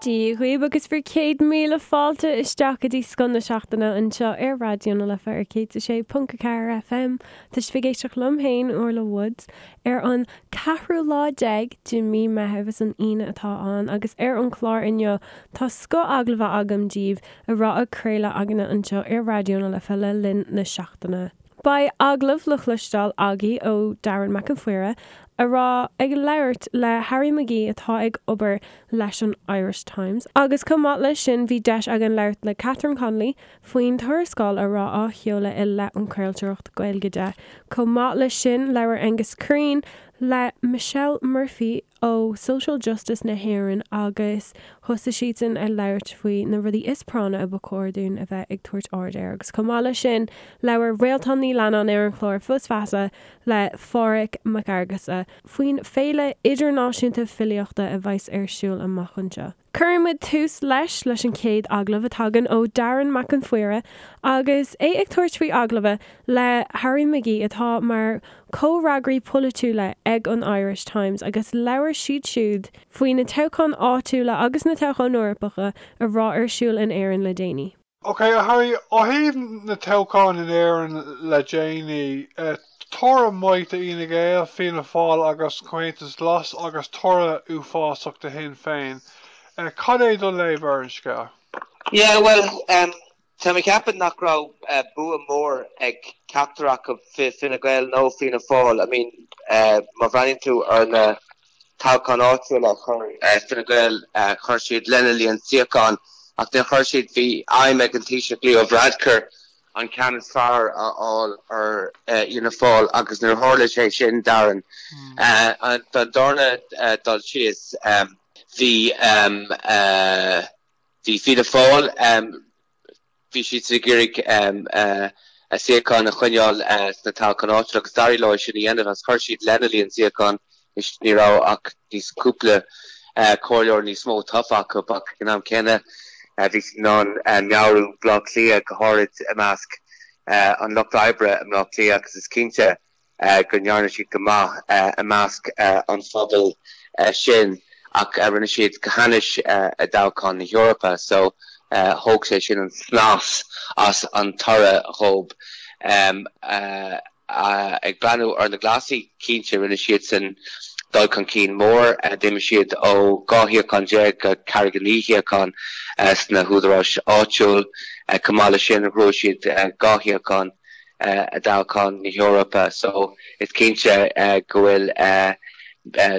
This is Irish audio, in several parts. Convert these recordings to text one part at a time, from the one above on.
Dia dhaoibh agus bhur 100,000 fáilte isteach go dtí Scoth na Seachtaine anseo ar Raidió na Life ar 106.4 FM. Tá sibh ag éisteacht liom féin, Orla Woods, ar an ceathrú lá déag de mí Meitheamh, is an Aoine atá ann, agus ar an chlár inniu tá scoth agallaimh agam daoibh a raibh á craoladh againne anseo ar Raidió na Life le linn na seachtaine. Beidh agallamh le cloisteáil agaibh ó Darren Mac an Phríora a raibh ag labhairt le Harry McGee atá ag obair leis an Irish Times agus chomh maith leis sin bhí deis againn labhairt le Catherine Connolly faoin tuarascáil a raibh á sheoladh i leith an chraoltóireacht Gaeilge de. Chomh maith leis sin labhair Aengus Crean le Michelle Murphy ó Social Justice na hÉireann agus thosaigh siadsan ag labhairt faoi na rudaí is práinne a ba chóir dúinn a bheith ag tabhairt aird air agus chomh maith leis sin labhair Réaltán Ní Leannáin ar an chlár Fios Feasa le Pádhraic Mac Fhearghusa faoin Féile Idirnáisiúnta Filíochta a bheas ar siúl amach anseo. Cuireann muid tús leis leis an chéad agallamh a tagann ó Darren Mac an Phríora agus é ag tabhairt faoi agallamh le Harry McGee atá mar chomhfhreagraí polaitiúla ag an Irish Times agus labhair siad siúd faoi na toghcháin áitiúla agus na toghcháin Eorpacha a raibh ar siúl in Éirinn le déanaí. Ok, a Harry, ó thaobh na toghcháin in Éirinn le déanaí, toradh maith do Fhine Gael, Fianna Fáil agus Comhaontas Glas agus toradh uafásach do Shinn Féin. Cad é do léamh ar an scéal? Yeah, bhuel, tá mé ag ceapadh nach raibh bua mór ag ceachtar acu, Fine Gael nó Fianna Fáil. I mean, má bhreathnaíonn tú ar na toghcháin áitiúla a chuir Fine Gael, chuir siad lena líon suíochán ach níor chuir siad, bhí aidhm ag an Taoiseach Leo Varadkar an ceann is fearr a fháil ar Fhianna Fáil agus níor tharla sé sin, Darren. Don darna dul síos, bhí bhí Fianna Fáil, Bhí siad ag iarraidh a suíocháin a choinneáil sna toghcháin áitiúla agus d'éirigh leo é sin a dhéanamh agus chuir siad lena líon suíochán. Ní raibh ach níos cúpla comhairleoir níos mó tofa acu ach ag an am céanna bhí siad in ann meabhrú Bhaile Átha Cliath, go háirid i measc an lucht oibre i mBaile Átha Cliath agus is cinnte go ndearna siad go maith i measc an phobail sin ach rinne siad go hainnis i dtoghchán na hEorpa so thóg sé sin an snas as an toradh dhóibh. Ag breathnú ar na Glasaigh, cinnte rinne siadsan dul chun cinn mór, d'imigh siad ó 12 shuíochán go 49 shuíochán sna húdaráis áitiúil. Chomh maith leis sin ghnóthaigh siad 2 shuíochán i dtoghchán na hEorpa so is cinnte go bhfuil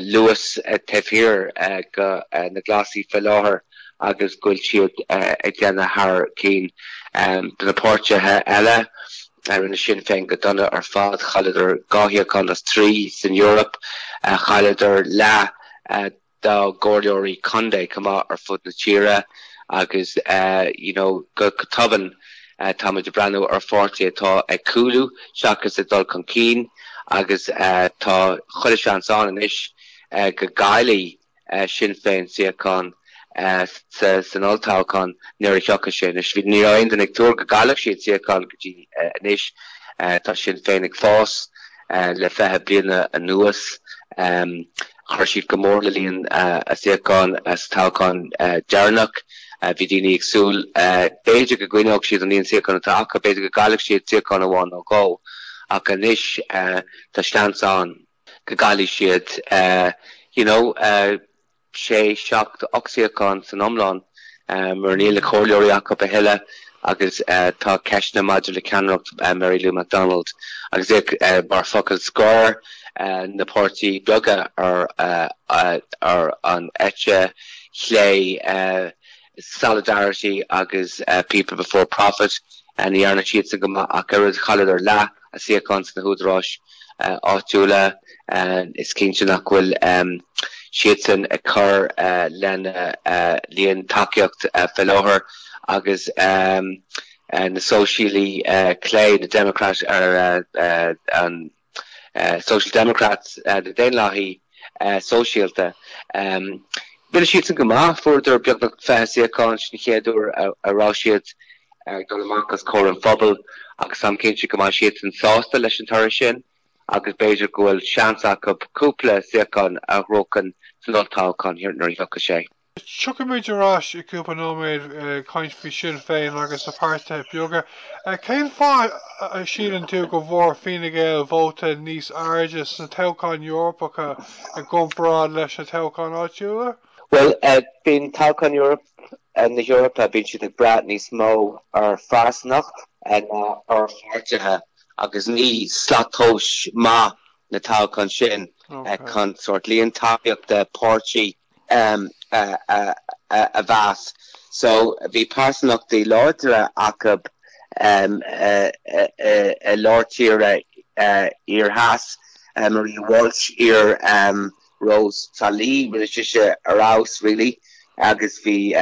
luas taobh thiar de na Glasaigh faoi láthair agus go bhfuil siad ag déanamh thar cinn. Do na páirtithe eile, rinne Sinn Féin go dona ar fad, chailleadar 2 shuíochán as 3 san Eoraip, chailleadar leath dá gcomhairleoirí contae chomh maith ar fud na tíre agus you know go tobann táimid ag breathnú ar pháirtí atá ag cúlú seachas ag dul chun cinn agus tá chuile seans ann anois go gcaillfidh Sinn Féin suíochán san olltoghchán nuair a thiocfaidh sé. Anois ní raibh aon duine ag tuar go gcaillfeadh siad suíochán go dtí anois. Tá Sinn Féin ag fás le 20 bliana anuas. Chuir siad go mór le líon a suíochán sa toghchán deireanach. Bhí daoine ag súil, b'fhéidir go gcoinneodh siad an líon suíochán atá acu, b'fhéidir go gcaillfeadh siad suíochán amháin nó dhó, ach anois tá seans ann go gcaillfidh siad you know. 6, 7, 8 suíochán san iomlán mar níl na comhairleoirí acu a thuilleadh agus tá ceisteanna maidir le ceannaireacht Mary Lou McDonald agus mar focal scoir na páirtí beaga ar ar an eite chlé Solidarity agus People Before Profit ní dhearna siadsan go maith ach oiread chailleadar leath a suíochán sna húdaráis áitiúla. Is cinnte nach bhfuil siadsan ag cur lena líon tacaíocht faoi láthair agus na Sóisialaí clé, na Democrat ar an Social Democrats, na Daonlathaí Sóisialta. Rinne siadsan go maith, fuaireadar beagnach 20 suíochán, sin an chéad uair a raibh siad ag dul amach os comhair an phobail agus táim cinnte go mbeidh siadsan sásta leis an toradh sin agus b'fhéidir go bhfuil seans acu cúpla suíochán a ghnóthachan san olltoghchán nuair a thiocfaidh sé. Tiocfaimid ar ais i gcúpla nóiméad ag caint faoi Sinn Féin agus na páirtithe beaga. Cén fáth a síleann tú go bhfuair Fine Gael vóta níos airde sna toghcháin Eorpacha i gcomparáid leis na toghcháin áitiúla? Bhuel, bíonn toghcháin na hEorpa, bíonn siad ag brath níos mó ar phearsanacht ná ar pháirtithe agus ní slat tomhais maith na toghcháin sin chun sórt líon tacaíochta páirtí a mheas. So bhí pearsanachtaí láidre acu i lár tíre thiar theas, Maria Walsh, iar Rós Trá Lí, rinne sise ar fheabhas really agus bhí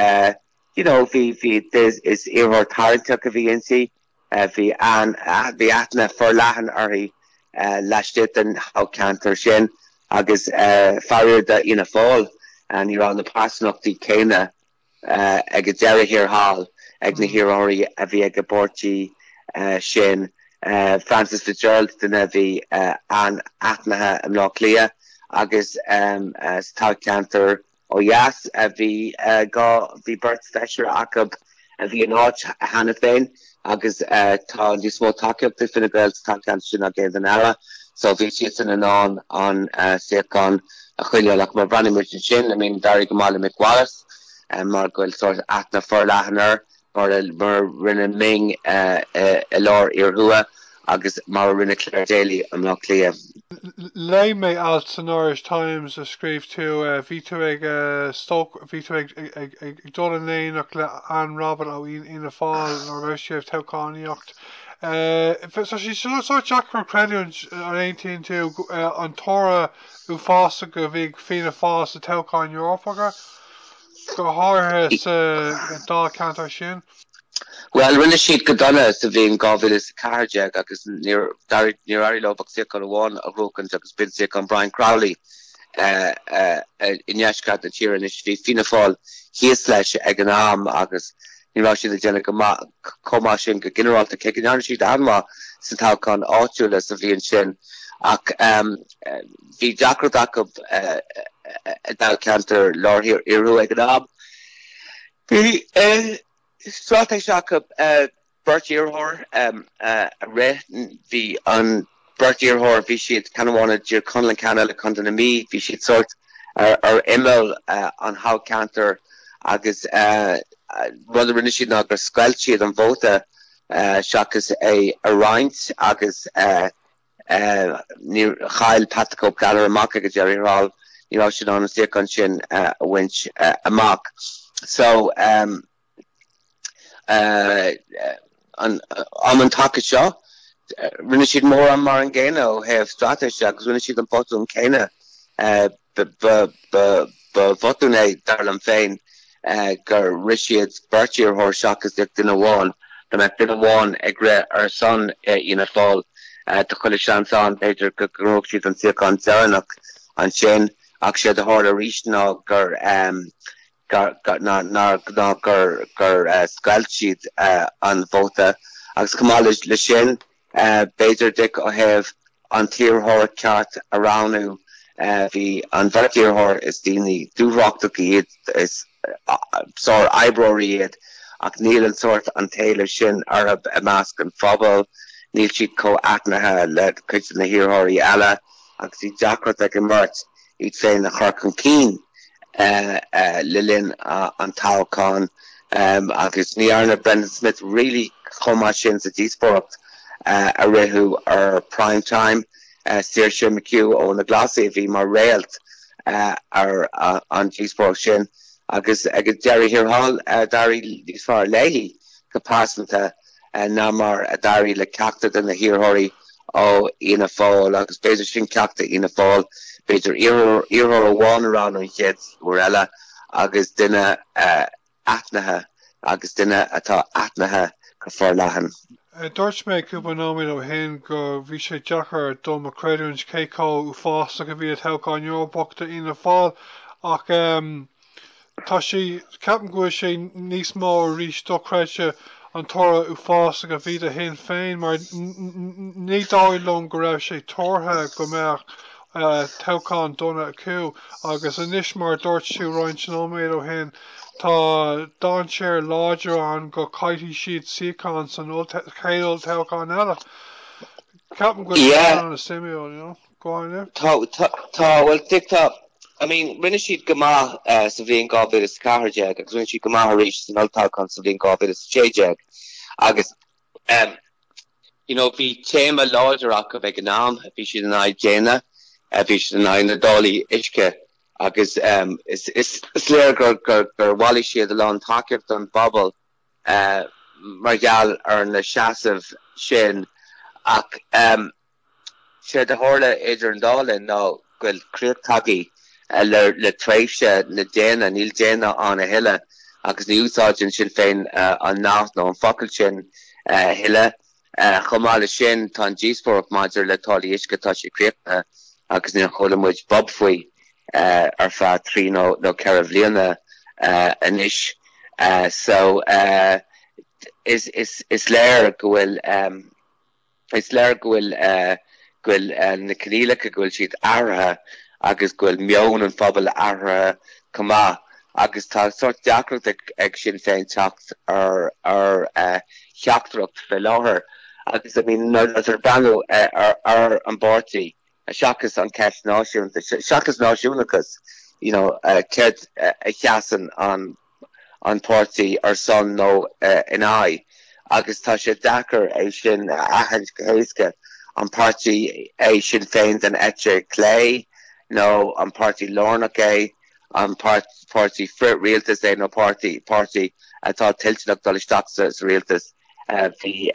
you know bhí bhí is iarrthóir tarraingteach a bhí inti. Bhí bhí aithne forleathan uirthi laistigh den thoghcheantar sin agus faraor d'Fhianna Fáil ní raibh na pearsanachtaí céanna ag an deireadh thiar thall ag na hiarrthóirí a bhí ag an bpáirtí sin. Frances Fitzgerald, duine a bhí an-aithnithe i mBleá Cliath agus sa toghcheantar Ó dheas, bhí dhá, bhí beirt feisire acu a bhí in áit cheana féin agus tá níos mó tacaíochta ag Fine Gael sa toghcheantar sin ná aon duine eile so bhí siadsan in ann an suíochán a choinneáil. Ach má bhreathnaíonn muid ansin, I mean d'éirigh go maith le Mick Wallace mar go bhfuil sórt aithne forleathan air. mar a rinne Ming i lár Thiar Thuaidh agus mar a rinne Clare Daly i mBleá Cliath. Léigh mé alt san Irish Times a scríobh tú, bhí tú ag stoc, bhí tú ag ag dul in éineacht le Anne Rabbitte ó Fhianna Fáil nuair a raibh sibh ag toghchánaíocht. Tá sé sórt deacair a chreidiúint, an aontaíonn tú, an toradh uafásach a bhí ag Fianna Fáil sa toghchán Eorpacha? go háirithe sa dáilcheantar sin. Bhuel, rinne siad go dona sa bhliain 2014 agus níor éirigh leo ach suíochán amháin a ghnóchaint agus b'in suíochán Brian Crowley i ndeisceart na tíre. Anois bhí Fianna Fáil thíos leis ag an am agus ní raibh siad ag déanamh go maith chomh maith sin go ginearálta, cé go ndearna siad an-mhaith sna toghcháin áitiúla sa bhliain sin. Ach bhí deacracht acu i dáilcheantar Lár Thiar Thiar Thuaidh ag an am. Bhí straitéis acu beirt iarrthóir a rith. Bhí an beirt iarrthóir, bhí siad, ceann amháin i dTír Chonaill an ceann eile i gContae na Mí, bhí siad sórt ar imeall an thoghcheantair agus rud a rinne siad ná gur scoilt siad an vóta seachas é a roinnt agus Níor chaill Pat the Cope Gallagher amach ag an deireadh thiar thall, ní raibh sé in ann an suíochán sin a bhaint amach. So, um an taca seo, rinne siad mórán mar an gcéanna ó thaobh straitéise agus rinne siad an botún céanna. Ba bhotún é, dar liom féin, gur rith siad beirt iarrthóir seachas duine amháin. Dá mbeadh duine amháin ag rith ar son Fhianna Fáil, tá chuile sheans ann, b'fhéidir, go ngnóthódh siad an suíochán deireanach ansin. Ach séard a tharla arís ná gur ná gur scoilt siad an vóta. Agus chomh maith leis sin, B'fhéidir, Dick, ó thaobh an t-iarrthóir ceart a roghnú, bhí an bheirt iarrthóir, is daoine dúthrachtacha iad, is sár-oibreoirí iad, ach níl an sórt an t-éileamh sin orthu i measc an phobail, níl siad chomh aithnithe le cuid de na hiarrthóirí eile agus bhí deacracht ag an mbeirt iad féin a chur chun cinn le linn an toghcháin agus ní dhearna Brendan Smith really chomh maith sin sa díospóireacht a ritheadh ar Prime Time. Saoirse McHugh ó na Glasaigh a bhí mar réalt ar an díospóireacht sin agus ag an deireadh thiar thall d'éirigh níos fearr léi go pearsanta. ná mar a d'éirigh le ceachtar de na hiarrthóirí ó Fhianna Fáil agus b'fhéidir sin ceacht do Fhianna Fáil, b'fhéidir iarrthóir amháin a roghnú an chéad uair eile agus duine aithnithe agus duine atá aithnithe go forleathan. Dúirt mé cúpla nóiméad ó shin go bhí sé deacair dom a chreidiúint cé chomh uafásach a bhí an toghchán Eorpach do Fhianna Fáil ach Tá sé, ceapaim go bhfuil sé níos mó arís dochreidte an toradh uafásach a bhí do Shinn Féin mar ní dóigh liom go raibh sé tuartha go mbeadh Toghchán dona acu agus anois mar a dúirt tú roinnt nóiméad ó shin tá dainséar láidir ann go caillfidh siad suíochán san chéad olltoghchán eile. Ceapaim go bhfuil sé an-suimiúil, you know. Go on, yeah. Tá, tá, tá, bhuel, Dick, tá, I mean, rinne siad go maith sa bhliain 2014 agus rinne siad go maith arís san olltoghchán sa bhliain 2016 agus em, you know, bhí téama láidir acu ag an am, bhí siad in aghaidh déine, bhí siad in aghaidh na dtáillí uisce agus em, is, is, is léir gur, gur, gur bhailigh siad a lán tacaíocht don bpobal eh, mar gheall ar na seasaimh sin ach em, Séard a tharla idir an dá linn ná go bhfuil críoch tagtha le tréimhse na déine, níl déine ann a thuilleadh agus ní úsáideann Sinn Féin an nath nó an focal sin a thuilleadh. Chomh maith leis sin, tá an díospóireacht maidir le táillí uisce, tá sé críochnaithe agus níor chuala muid bob faoi ar feadh trí nó 4 bhliana anois. So, is léir go bhfuil. Is léir go bhfuil go bhfuil na coinníollacha, go bhfuil siad athraithe agus go bhfuil meon an phobail athraithe chomh maith agus tá sórt deacracht ag Sinn Féin teacht ar ar theachtaireacht fé láthair agus I mean nuair atá tú ag breathnú ar ar an bpáirtí seachas an ceist náisiúnta, seachas náisiúnachas you know céard a sheasann an an páirtí ar son nó in aghaidh agus tá sé deacair é sin a aithint go héasca. An páirtí é Sinn Féin den eite chlé nó an páirtí lárnach é, an páirtí frith-rialtas é nó páirtí páirtí atá toilteanach dul isteach sa rialtas. Bhí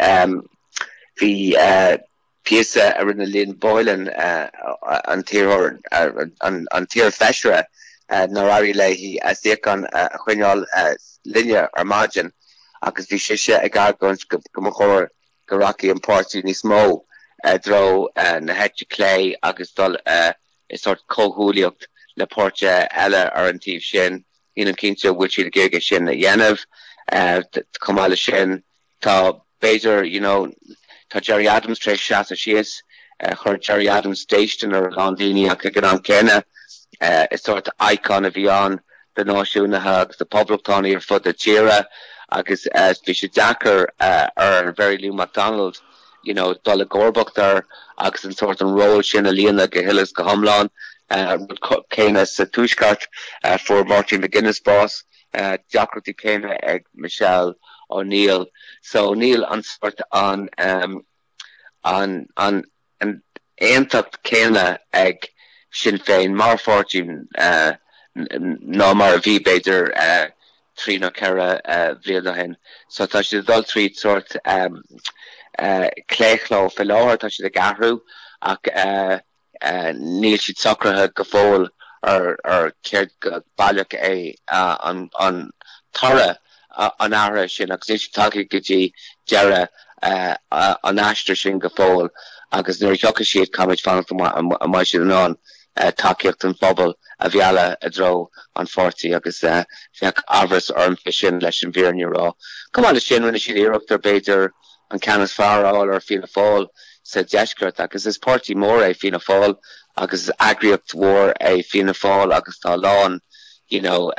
bhí píosa a rinne Lynn Boylan, an t-iarrthóir, an t-iarfheisire nár éirigh léi a suíochán a choinneáil linne ar maidin agus bhí sise ag argóint go mba chóir go rachaidh an páirtí níos mó i dtreo na heite clé agus dul i sórt comhghuaillíocht le páirtithe eile ar an taobh sin. Nílim cinnte an bhfuil siad ag iarraidh é sin a dhéanamh. Chomh maith leis sin, Tá, b'fhéidir, you know, tá Gerry Adams tar éis seasamh síos, chuir Gerry Adams déistin ar a lán daoine ach ag an am céanna is sórt icon a bhí ann do náisiúnaithe agus do poblachtánaigh ar fud na tíre agus bhí sé deacair ar Mhary Lou McDonald, you know, dul i gcomharbacht air agus an sórt an ról sin a líonadh go huile is go hiomlán. Rud céanna sa Tuaisceart, fuair Martin McGuinness bás. deacrachtaí céanna ag Michelle O'Neill. So níl an sórt an an an aontacht céanna ag Sinn Féin mar pháirtí ná mar a bhí b'fhéidir 3 nó 4 bhliain ó shin. So tá siad ag dul tríd sórt claochló fé láthair, tá siad ag athrú ach Níl siad socraithe go fóill ar céard go baileach é an toradh an athraithe sin agus níl siad tagtha go dtí deireadh an aistir sin go fóill agus nuair a thiocfaidh siad caithfimid fanacht an mbeidh siad in ann tacaíocht an phobail a mhealladh i dtreo an pháirtí agus bheadh amhras orm fé sin leis an bhfírinne a rá. Chomh maith leis sin rinne siad iarracht ar b'fhéidir an ceann is fearr a fháil ar Fianna Fáil sa deisceart agus is páirtí mór é Fianna Fáil agus is eagraíocht mhór é Fianna Fáil agus tá a lán you know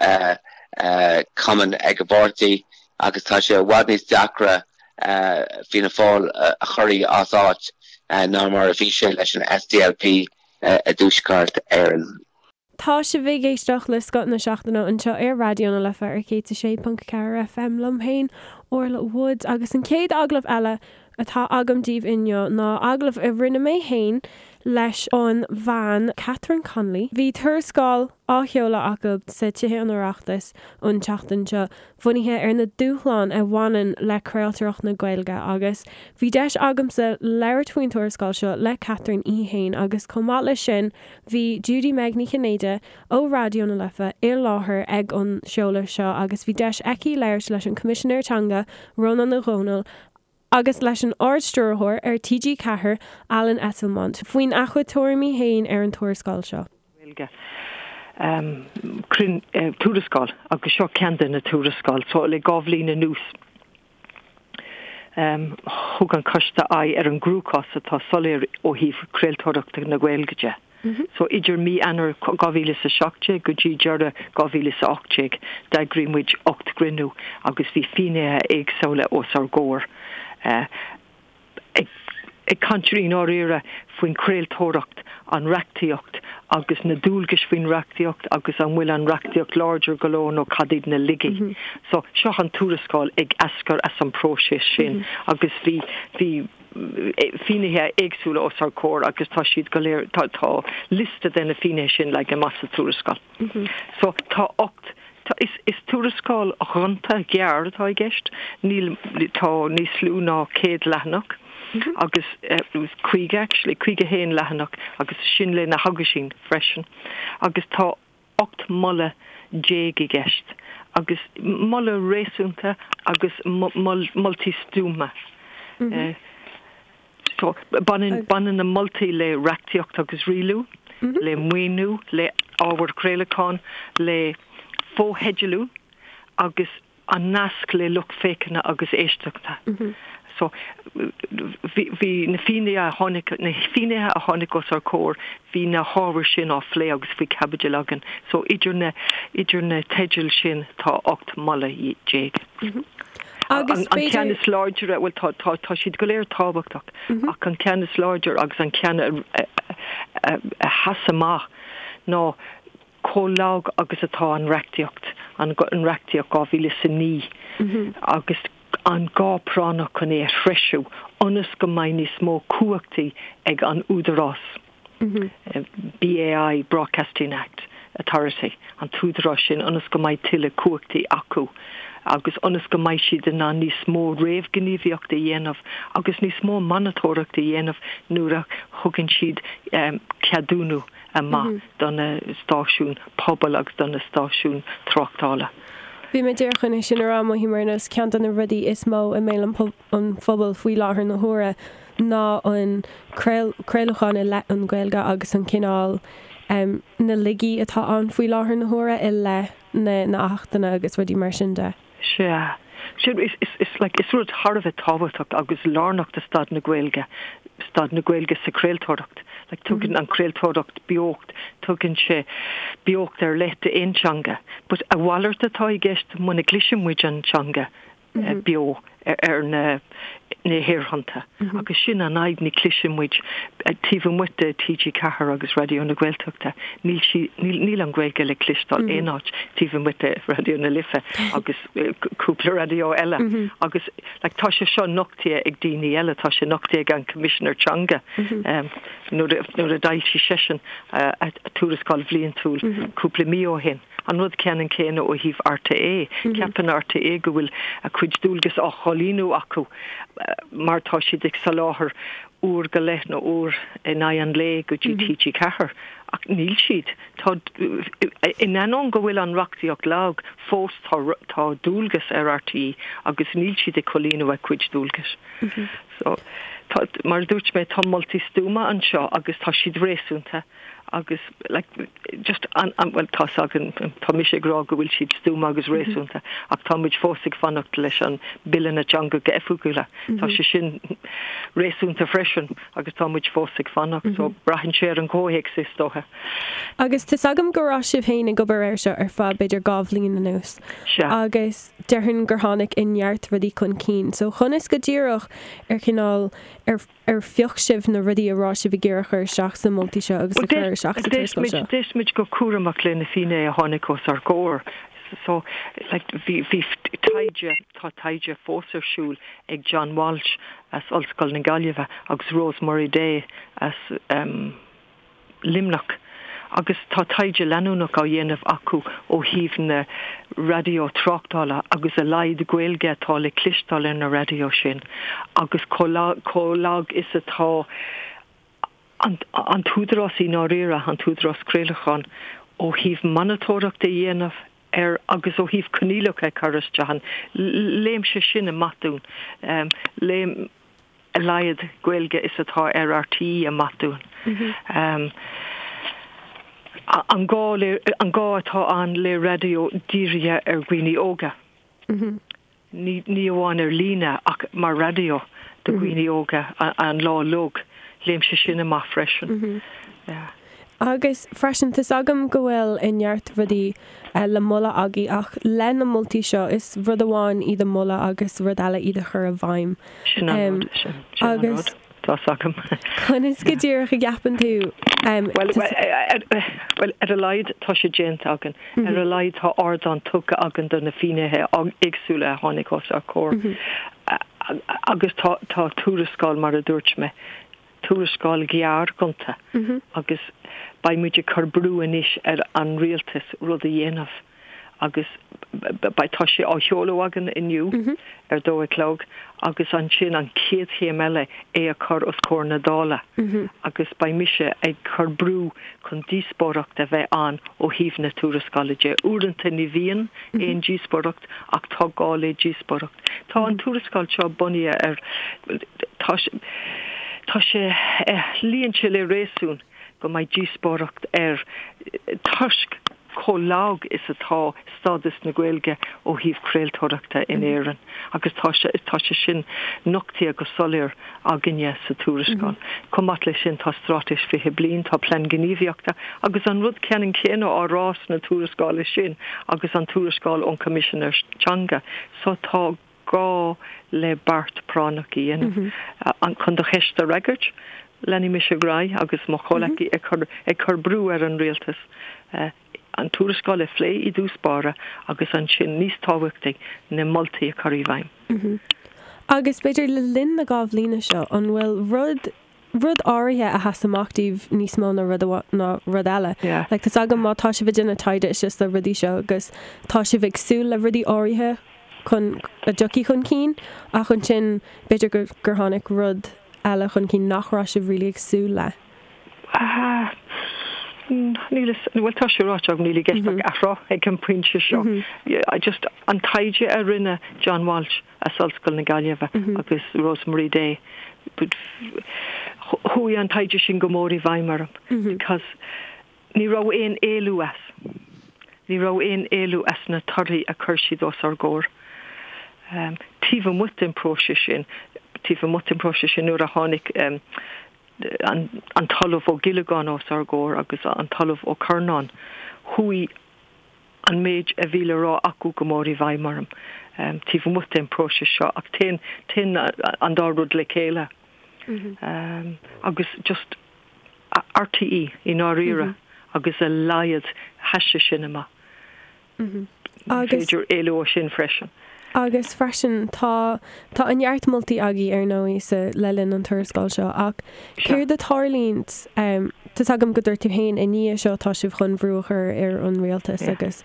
cumann ag an bpáirtí agus tá sé i bhfad níos deacra Fianna Fáil a chur as áit ná mar a bhí sé leis an SDLP i dTuaisceart Éireann. Tá sibh ag éisteacht le Scoth na Seachtaine anseo ar Raidió na Life ar 106.4 FM liom féin, Orla Woods, agus an chéad agallamh eile atá agam daoibh inniu ná agallamh a rinne mé féin leis an bhean Catherine Connolly. Bhí tuarascáil á sheoladh acu sa Tithe an Oireachtais an tseachtain seo bunaithe ar na dúshláin a bhaineann le craoltóireacht na Gaeilge agus bhí deis agamsa labhairt faoin tuarascáil seo le Catherine í fhéin agus chomh maith leis sin Bhí Judy Meg Ní Chinnéide ó Raidió na Life i láthair ag an seoladh seo agus bhí deis aici labhairt leis an Coimisinéir Teanga, Rónán Ó Domhnaill, agus leis an Ard-Stiúrthóir ar TG4, Alan Esslemont, faoina chuid tuairimí féin ar an tuarascáil seo. Gaeilge. Tuarascáil agus seo ceann de na tuarascáil. So le 2 bhliain anuas. Thug an Coiste aghaidh ar an gcruachás atá soiléir ó thaobh craoltóireachta na Gaeilge de. So idir mí Eanáir 2017 go dtí deireadh 2018 d'eagraigh muid 8 gcruinniú agus bhí finnéithe éagsúla os ár gcomhair ag caint i ndáiríre faoin chraoltóireacht, an reachtaíocht agus na dualgais faoin reachtaíocht agus an bhfuil an reachtaíocht láidir go leor nó cad iad na laigí. So seo an tuarascáil ag eascair as an bpróiseas sin agus bhí bhí finnéithe éagsúla os ár gcomhair agus tá siad go léir, tá tá liosta de na finnéithe sin leagtha amach sa tuarascáil. So tá 8, tá, is, is tuarascáil ghonta ghearr atá i gceist, níl, tá níos lú ná 100 leathanach agus 50 actually, 51 leathanach agus sin le na haguisíní freisin agus tá 18 moladh i gceist agus moladh réasúnta agus moltaí stuama. So, baineann, baineann na moltaí le reachtaíocht agus rialú, le maoiniú, le ábhar craolacháin, le fotheidealú agus an nasc le lucht féachana agus éisteachta. So, bhí, bhí na finnéithe a tháinig, na finnéithe a tháinig os ár gcomhair, bhí na hábhair sin á phlé agus faoi chaibidil againn. So, idir na, idir na teidil sin tá 18 moladh. Agus An ceann is láidre, bhuel tá, tá, tá siad go léir tábhachtach, ach an ceann is láidre agus an ceann a, a, a, a sheas amach ná chomh lag agus atá an reachtaíocht, an reachtaíocht 2009, agus an gá práinneach chun é a threisiú ionas go mbeidh níos mó cumhachtaí ag an údarás, BAI, Broadcasting Act Authority, an t-údarás sin, ionas go mbeidh tuilleadh cumhachtaí acu agus ionas go mbeidh siad in ann níos mó réamhghníomhaíochta a dhéanamh agus níos mó monatóireachta a dhéanamh nuair a thugann siad ceadúnú amach do na stáisiúin pobail agus do na stáisiúin tráchtála. Bhí mé díreach chun é sin a rá, mothaím ar nós ceann de na rudaí is mó i mbéal an phobail faoi láthair na huaire ná an craolachán i leith an Ghaeilge agus an cineál, na laigí atá ann faoi láthair na huaire i leith na n-achtanna agus rudaí mar sin de. Sea. Sin, is, is, is, like, is rud thar a bheith tábhachtach agus lárnach do staid na Gaeilge, staid na Gaeilge sa chraoltóireacht. Like, tugann an chraoltóireacht beocht, tugann sé beocht ar leith d'aon teanga. But a mhalairt atá i gceist muna gcloiseann muid an teanga beo ar na, na haerthonnta. Agus sin an fhadhb, ní chloiseann muid, taobh amuigh de TG4 agus Raidió na Gaeltachta, níl sí, níl, níl an Ghaeilge le cloisteáil aon áit taobh amuigh de Raidió na Life agus cúpla raidió eile. Agus like tá sé seo nochtaithe ag daoine eile, tá sé nochtaithe ag an Coimisinéir Teanga nuair a, nuair a d'fhoilsigh seisean a tuarascáil bhliantúil cúpla mí ó shin. An rud ceannann céanna ó thaobh RTÉ. Ceapann RTÉ go bhfuil a cuid dualgas á chomhlíonadh acu mar tá siad ag soláthar uair go leith nó uair in aghaidh an lae go dtí TG4. Ach níl siad. Tá, in ainneoin go bhfuil an reachtaíocht lag, fós tá tá dualgas ar RTÉ agus níl siad ag comhlíonadh a cuid dualgais. So, tá, mar a dúirt mé, tá moltaí stuama anseo agus tá siad réasúnta. agus like just an, an, bhuel tá's againn, tá mise ag rá go bhfuil siad stuama agus réasúnta ach tá muid fós ag fanacht leis an Bille na dTeangacha Oifigiúla. Tá sé sin réasúnta freisin agus tá muid fós ag fanacht so braitheann sé ar an gcomhthéacs is dócha. Agus tá's agam go raibh sibh féin ag obair air seo ar feadh b'fhéidir 2 bhliain anuas Sea. agus déarfainn gur tháinig neart rudaí chun cinn. So conas go díreach ar chineál, ar Ar phioc sibh na rudaí a raibh sibh ag iarraidh a chur isteach sna moltaí seo agus a chur isteach sa tuarascáil seo? D'éist muid go cúramach le na finnéithe a tháinig os ár gcomhair. So, like, bhí, bhí taighde, tá taighde fós ar siúl ag John Walsh as Ollscoil na Gaillimhe agus Rosemary Day as, em, Luimneach agus tá taighde leanúnach á dhéanamh acu ó thaobh na raidió tráchtála agus a laghad Gaeilge atá le cloisteáil ar na raidió sin agus chomh lag is atá an t-údarás i ndáiríre, an tÚdarás Craolacháin, ó thaobh monatóireacht a dhéanamh ar agus ó thaobh coinníollacha a chur isteach ann. Léann sé sin amach dúinn. Léann. a laghad Gaeilge is atá ar RTÉ amach dúinn. An gá le, an gá atá ann le raidió dírithe ar dhaoine óga. Ní, ní amháin ar líne ach mar raidió do dhaoine óga an lá uilig. Léann sé sin amach freisin. Yeah. Agus freisin, tá's agam go bhfuil neart rudaí le moladh agaibh ach le na moltaí seo, is rud amháin iad a mholadh agus rud eile iad a chur i bhfeidhm. Sin an rud, sin, sin an rud. Tá's agam. Conas go díreach a gceapann tú? Bhuel, bhuel, ar a laghad tá sé déanta againn. Ar a laghad tá ardán tugtha againn do na finnéithe éagsúla a tháinig os ár gcomhair. Agus tá, tá tuarascáil, mar a dúirt mé, tuarascáil ghearr ghonta agus beidh muid ag cur brú anois ar an rialtas rud a dhéanamh agus beidh, tá sé á sheoladh againn inniu ar dó a chlog agus ansin an chéad chéim eile é a chur os comhair na Dála agus beidh mise ag cur brú chun díospóireacht a bheith ann ó thaobh na tuarascála de. Uaireanta ní bhíonn aon díospóireacht ach tá gá le díospóireacht. Tá an tuarascáil seo bunaithe ar, tá sé, tá sé, luíonn sé le réasún go mbeidh díospóireacht air toisc chomh lag is atá stádas na Gaeilge ó thaobh craoltóireachta in Éirinn agus tá sé, tá sé sin nochtaithe go soiléir againne sa tuarascáil. Chomh maith leis sin tá Straitéis 20 Bliain, tá Plean Gníomhaíochta agus an rud ceannann céanna á rá sna tuarascála sin agus an tuarascáil ón Choimisinéir Teanga. So tá gá le beart práinneach a dhéanamh. Chun do cheist a fhreagairt, leanfaidh mise ar aghaidh agus mo chomhleacaí ag cur ag cur brú ar an rialtas an tuarascáil a phlé i dtús báire agus ansin, níos tábhachtaí, na moltaí a chur i bhfeidhm. Agus b'fhéidir le linn na 2 bhliana seo, an bhfuil rud rud áirithe a sheas amach daoibh níos mó ná rud ná rud eile. Like tá's agam má tá sibh ag déanamh taighde is sna rudaí seo agus tá sibh ag súil le rudaí áirithe chun a dtiocfaidh chun cinn ach ansin b'fhéidir gur gur tháinig rud eile chun cinn nach raibh sibh really ag súil le. Ah, níl a fhios, bhuel tá sé ráite agam níl i gceist ach athrá ag an bpointe seo. I just an taighde a rinne John Walsh as Ollscoil na Gaillimhe agus Rosemary Day. Chuaigh an taighde sin go mór i bhfeidhm orm because ní raibh aon éalú as. Ní raibh aon éalú as na torthaí a chuir siad os ár gcomhair. Taobh amuigh den phróiseas sin, taobh amuigh den phróiseas sin nuair a tháinig an tOllamh Ó Giollagáin os ár gcomhair agus an tOllamh Ó Curnáin, chuaigh an méid a bhí le rá acu go mór i bhfeidhm orm taobh amuigh den phróiseas seo ach téann, téann an dá rud le chéile. Agus just RTÉ i ndáiríre agus a laghad sheas sé sin amach. Ní féidir éalú ó sin freisin. Agus freisin tá, tá an-neart moltaí agaibh ar ndóigh sa, le linn an tuarascáil seo ach céard a tharlaíonn, tá's agam go dúirt tú féin i ndiaidh seo tá sibh chun brú a chur ar an rialtas agus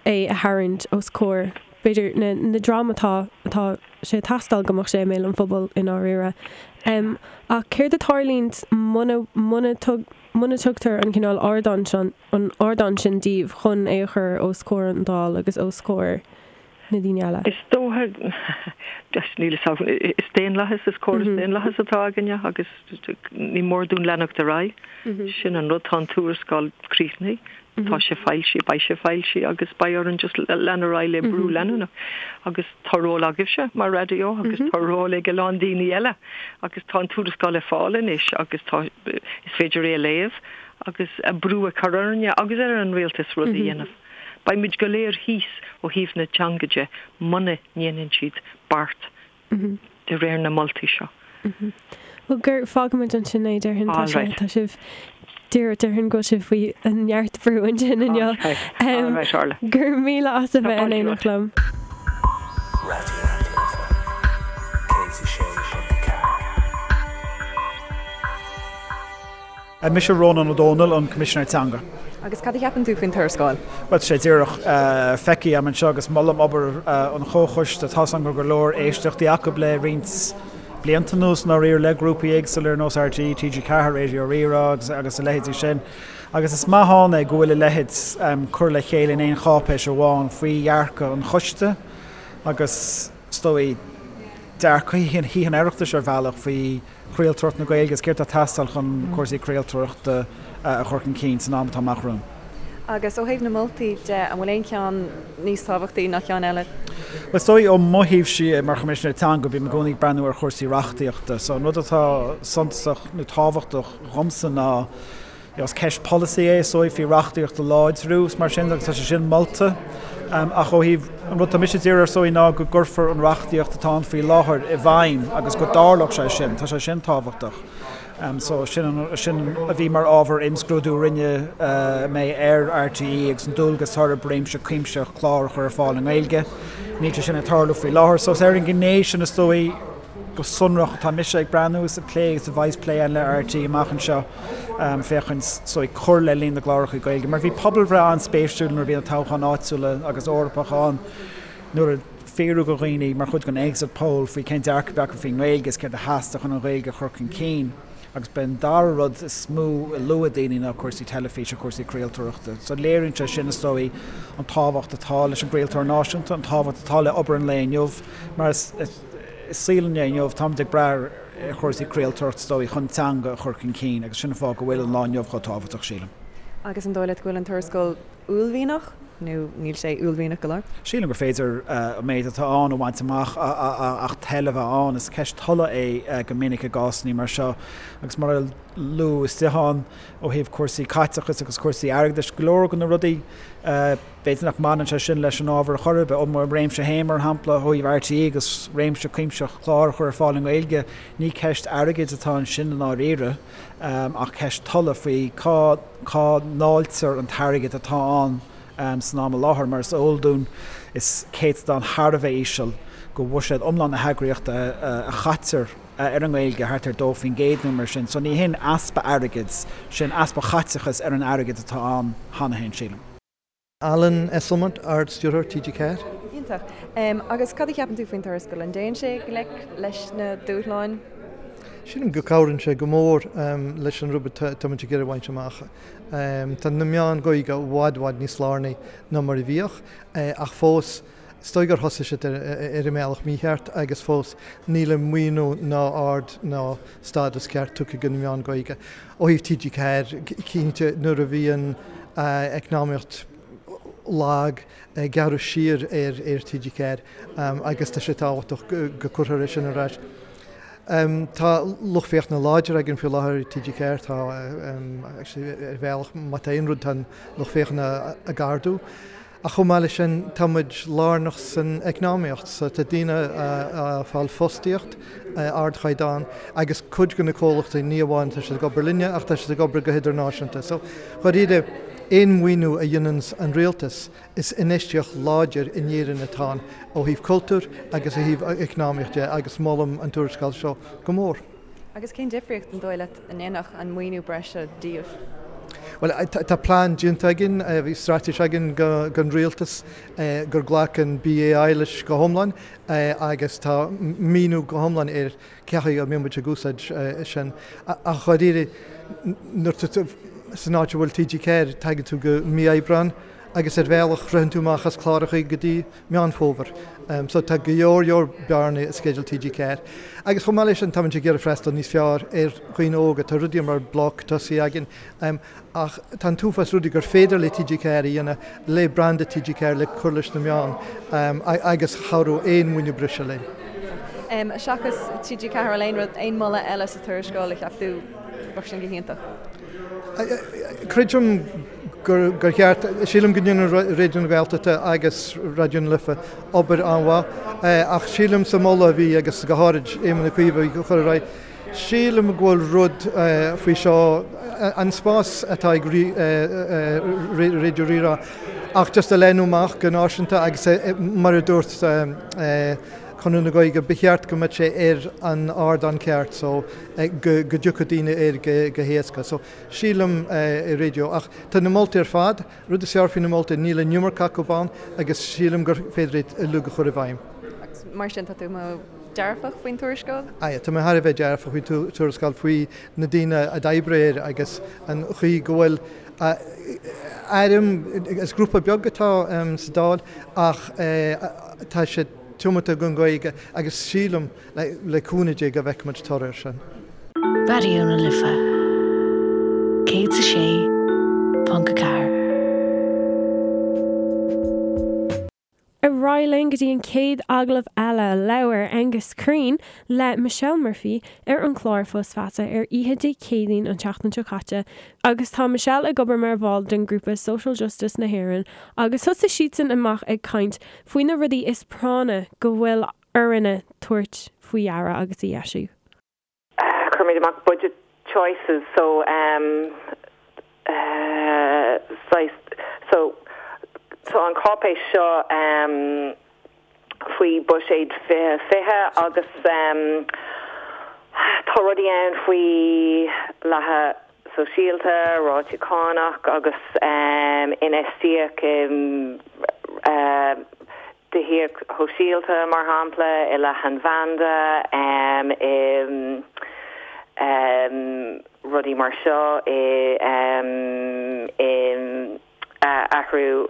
é a tharraingt os comhair b'fhéidir na, na dream atá, atá sé ag teastáil go mbeadh sé i mbéal an phobail i ndáiríre. Ach céard a tharlaíonn muna, muna, muna tugtar an cineál ardán seo, an ardán sin daoibh chun é a chur os comhair an Dáil agus os comhair na daoine eile. Is dócha, just níl a fhios agam, is daonlathas, is córas daonlathas atá againne agus ní mór dúinn leanacht ar aghaidh. Sin an rud, tá an tuarascáil críochnaithe, tá sé foilsithe, beidh sé foilsithe agus beidh orainn just lean ar aghaidh le brú leanúnach. Agus tá ról agaibhse mar raidió agus tá ról ag a lán daoine eile agus tá an tuarascáil ar fáil anois agus tá, is féidir é a léamh agus brú a chur orainne agus ar an rialtas rud a dhéanamh. Beidh muid go léir thíos ó thaobh na teanga de muna ndéanann siad beart de réir na moltaí seo. Bhuel, gur fágfaimid ansin é, déarfainn. Tá sé, tá sibh, déarfainn go bhfuil sibh faoi neart brú ansin inniu. Alright, Orla. Go raibh míle as a bheith in éineacht liom. Raidió na Life 106.4. Mise Rónán Ó Domhnaill, an Coimisinéir Teanga. Agus cad a cheapann tú faoin tuarascáil? Bhuel, tá sé díreach feicthe agam anseo agus molaim obair an chomhchoiste. Tá's agam go raibh go leor éisteachtaí acu le roinnt blianta anuas, i ndáiríre, le grúpaí éagsúla ar nós RTÉ, TG4, Raidió Rí-Rá agus a leithéidí sin. Agus is maith ann é go bhfuil a leithéid curtha le chéile in aon cháipéis amháin faoi dhearcadh an choiste agus, is dóigh, dearcadh Thithe an Oireachtais ar bhealach faoi chraoltóireacht na Gaeilge agus céard atá ag teastáil chun cúrsaí craoltóireachta a chur chun cinn san am atá amach romhainn. Agus ó thaobh na moltaí de, an bhfuil aon cheann níos tábhachtaí ná ceann eile? Bhuel, is dóigh ó mo thaobhse mar Choimisinéir Teanga, bím i gcónaí ag breathnú ar chúrsaí reachtaíochta. So an rud atá suntasach nó tábhachtach dhomsa ná. Is ceist polasaí é is dóigh faoi reachtaíocht a láidriú is mar sin agus tá sé sin molta. Ach ó thaobh an rud atá mise ag iarraidh is dóigh ná go gcuirfear an reachtaíocht atá ann faoi láthair i bhfeidhm agus go dtarlódh sé sin. Tá sé sin tábhachtach. So sin sin a bhí mar ábhar imscrúdú a rinne mé ar RTÉ agus an dualgas atá orthu réimse cuimsitheach clár a chur ar fáil i nGaeilge. Níl sé sin ag tarlú faoi láthair. So is ar an ghné sin is dóigh go sonrach atá mise ag breathnú is ag plé agus a bheas plé ann le RTÉ amach anseo féachaint is dóigh cur le líon na gcláracha Gaeilge. Mar bhí pobalbhreith an-spéisiúil nuair a bhí na toghcháin áitiúla agus Eorpacha ann nuair a fiafraíodh de dhaoine mar chuid den exit poll faoi cén dearcadh a bhí acu faoin nGaeilge is céard a theastaigh chun an Ghaeilge a chur chun cinn agus b'é an dara rud is mó a luaigh daoine ná cúrsaí teilifíse, cúrsaí craoltóireachta. So léiríonn sé sin is dóigh an tábhacht atá leis an gcraoltóir náisiúnta, an tábhacht atá le obair an lae inniu mar is i saol an lae inniu táimid ag brath ar chúrsaí craoltóireachta is dóigh chun teanga a chur chun cinn agus sin an fáth go bhfuil an lá inniu chomh tábhachtach sílim. Agus an dóigh leat go bhfuil an tuarascáil uaillmhianach nó níl sé uaillmhianach go leor? Sílim gur féidir an méid atá ann a bhaint amach ach toil a bheith ann. Is ceist tola é go minic i gcásanna mar seo agus mar a luadh istigh ann ó thaobh cúrsaí caiteachais agus cúrsaí airgeadais, go leor de na rudaí b'fhéidir nach mbaineann sé sin leis an ábhar ar chor ar bith. Ó mo réimse féin, mar shampla, ó thaobh RTÉ agus réimse cuimsitheach clár a chur ar fáil i nGaeilge, ní ceist airgid atá ansin i ndáiríre. ach ceist tola faoi cá cá ndáiltear an t-airgead atá ann san am i láthair. Mar is eol dúinn, is céatadán thar a bheith íseal de bhuiséad iomlán na heagraíochta a chaitear ar an nGaeilge, thart ar 2% nó mar sin. So ní hin easpa airgid, sin easpa chaiteachas ar an airgead atá ann cheana féin, sílim. Alan Esslemont, Ard-Stiúrthóir TG4. Iontach. Agus cad a cheapann tú faoin tuarascáil? An dtéann sé i ngleic leis na dúshláin? Sílim go cabhraíonn sé go mór leis an rud atá muid ag iarraidh a bhaint amach. Tá na meáin Ghaeilge i bhfad, bhfad níos lárnaí ná mar a bhíodh, ach fós, is dóigh gur thosaigh siad ar an mbealach mícheart agus fós níl an maoiniú ná aird ná stádas ceart tugtha do na meáin Ghaeilge. Ó thaobh TG4, cinnte, nuair a bhí an eacnamaíocht lag, gearradh siar ar TG4 agus tá sé tábhachtach go gcuirfear é sin ar ais. Tá lucht féachana láidir againn faoi láthair ar TG4, tá, actually, ar bhealach, má tá aon rud, tá an lucht féachana ag ardú. Ach chomh maith leis sin, tá muid lárnach san eacnamaíocht, so tá daoine ag fáil fostaíocht ardchaighdeán agus cuid de na comhlachtaí, ní amháin tá siad ag obair linne ach tá siad ag obair go hidirnáisiúnta. So, dháiríre, aon mhaoiniú a dhéanann an rialtas, is infheistíocht láidir in Éirinn atá ann ó thaobh cultúir agus ó thaobh eacnamaíocht de agus molaim an tuarascáil seo go mór. Agus cén difríocht, an dóigh leat, a ndéanfadh an maoiniú breise daoibh? Bhuel, tá plean déanta againn, bhí straitéis againn don rialtas gur ghlac an BAI leis go hiomlán agus tá míniú go hiomlán ar cé chaoi a mbeidh muid ag úsáid sin. Ach dháiríre, nuair atá tú san áit a bhfuil TG4, tagann tú go mí Aibreán agus ar bhealach ritheann tú amach as cláracha go dtí Meán Fómhair. So tá go leor leor bearnaí i sceideal TG4. Agus chomh maith leis sin táimid ag iarraidh freastal níos fearr ar dhaoine óga. Tá rudaí mar Bloc tosaithe againn ach tá an t-uafás rudaí gur féidir le TG4 a dhéanamh le branda TG4 le cur leis na meáin agus chabhródh aon mhaoiniú breise linn. Seachas TG4, an bhfuil aon rud, aon mholadh eile sa tuarascáil a cheap tú bheadh sin go hiontach? Creidim gur cheart, sílim go ndéanann Raidió na Gaeltachta agus Raidió na Life obair an-mhaith, ach sílim sa moladh a bhí, agus go háirid Éamon Ó Cuív a chur ar aghaidh, sílim go bhfuil rud faoi seo, an spás atá ag Raidió Rí-Rá, ach just a leathnú amach go náisiúnta agus mar a dúirt Conradh na Gaeilge, ba cheart go mbeadh sé ar an ardán ceart so go dtiocfadh daoine air go héasca. So sílim i raidió. Ach tá na moltaí ar fad, rud is fearr faoi na moltaí, níl an iomarca acu ann agus sílim gur féidir iad uilig a chur i bhfeidhm. Agus mar sin, tá tú dearfach faoin tuarascáil? Aye, tá mé thar a bheith dearfach faoin tuarascáil, faoi na daoine a d'oibrigh air agus an chaoi go bhfuil airm, is grúpa beag atá sa Dáil ach tá siad tiomanta don Ghaeilge agus sílim Le cúnamh Dé go bhfeicfimid toradh air sin. Raidió na Life 106.4. Ar aghaidh. aghaidh linn go dtí an chéad agallamh eile. Labhair Aengus Crean le Michelle Murphy ar an chlár Fios Feasa ar oíche Dé Céadaoin an tseachtain seo caite agus tá Michelle ag obair mar bhall den ghrúpa Social Justice na hÉireann agus thosaigh siadsan amach ag caint faoi na rudaí is práinne go bhfuil orainne tabhairt faoi deara agus a dheisiú. Cuirimid amach budget choices so um saghas so tá an cáipéis seo um faoi buiséad 2020 agus um tá rudaí ann faoi leathadh sóisialta, rátaí cánach agus um infheistíocht i um tithíocht shóisialta, mar shampla, i leathanbhanda, i rudaí mar seo, i athrú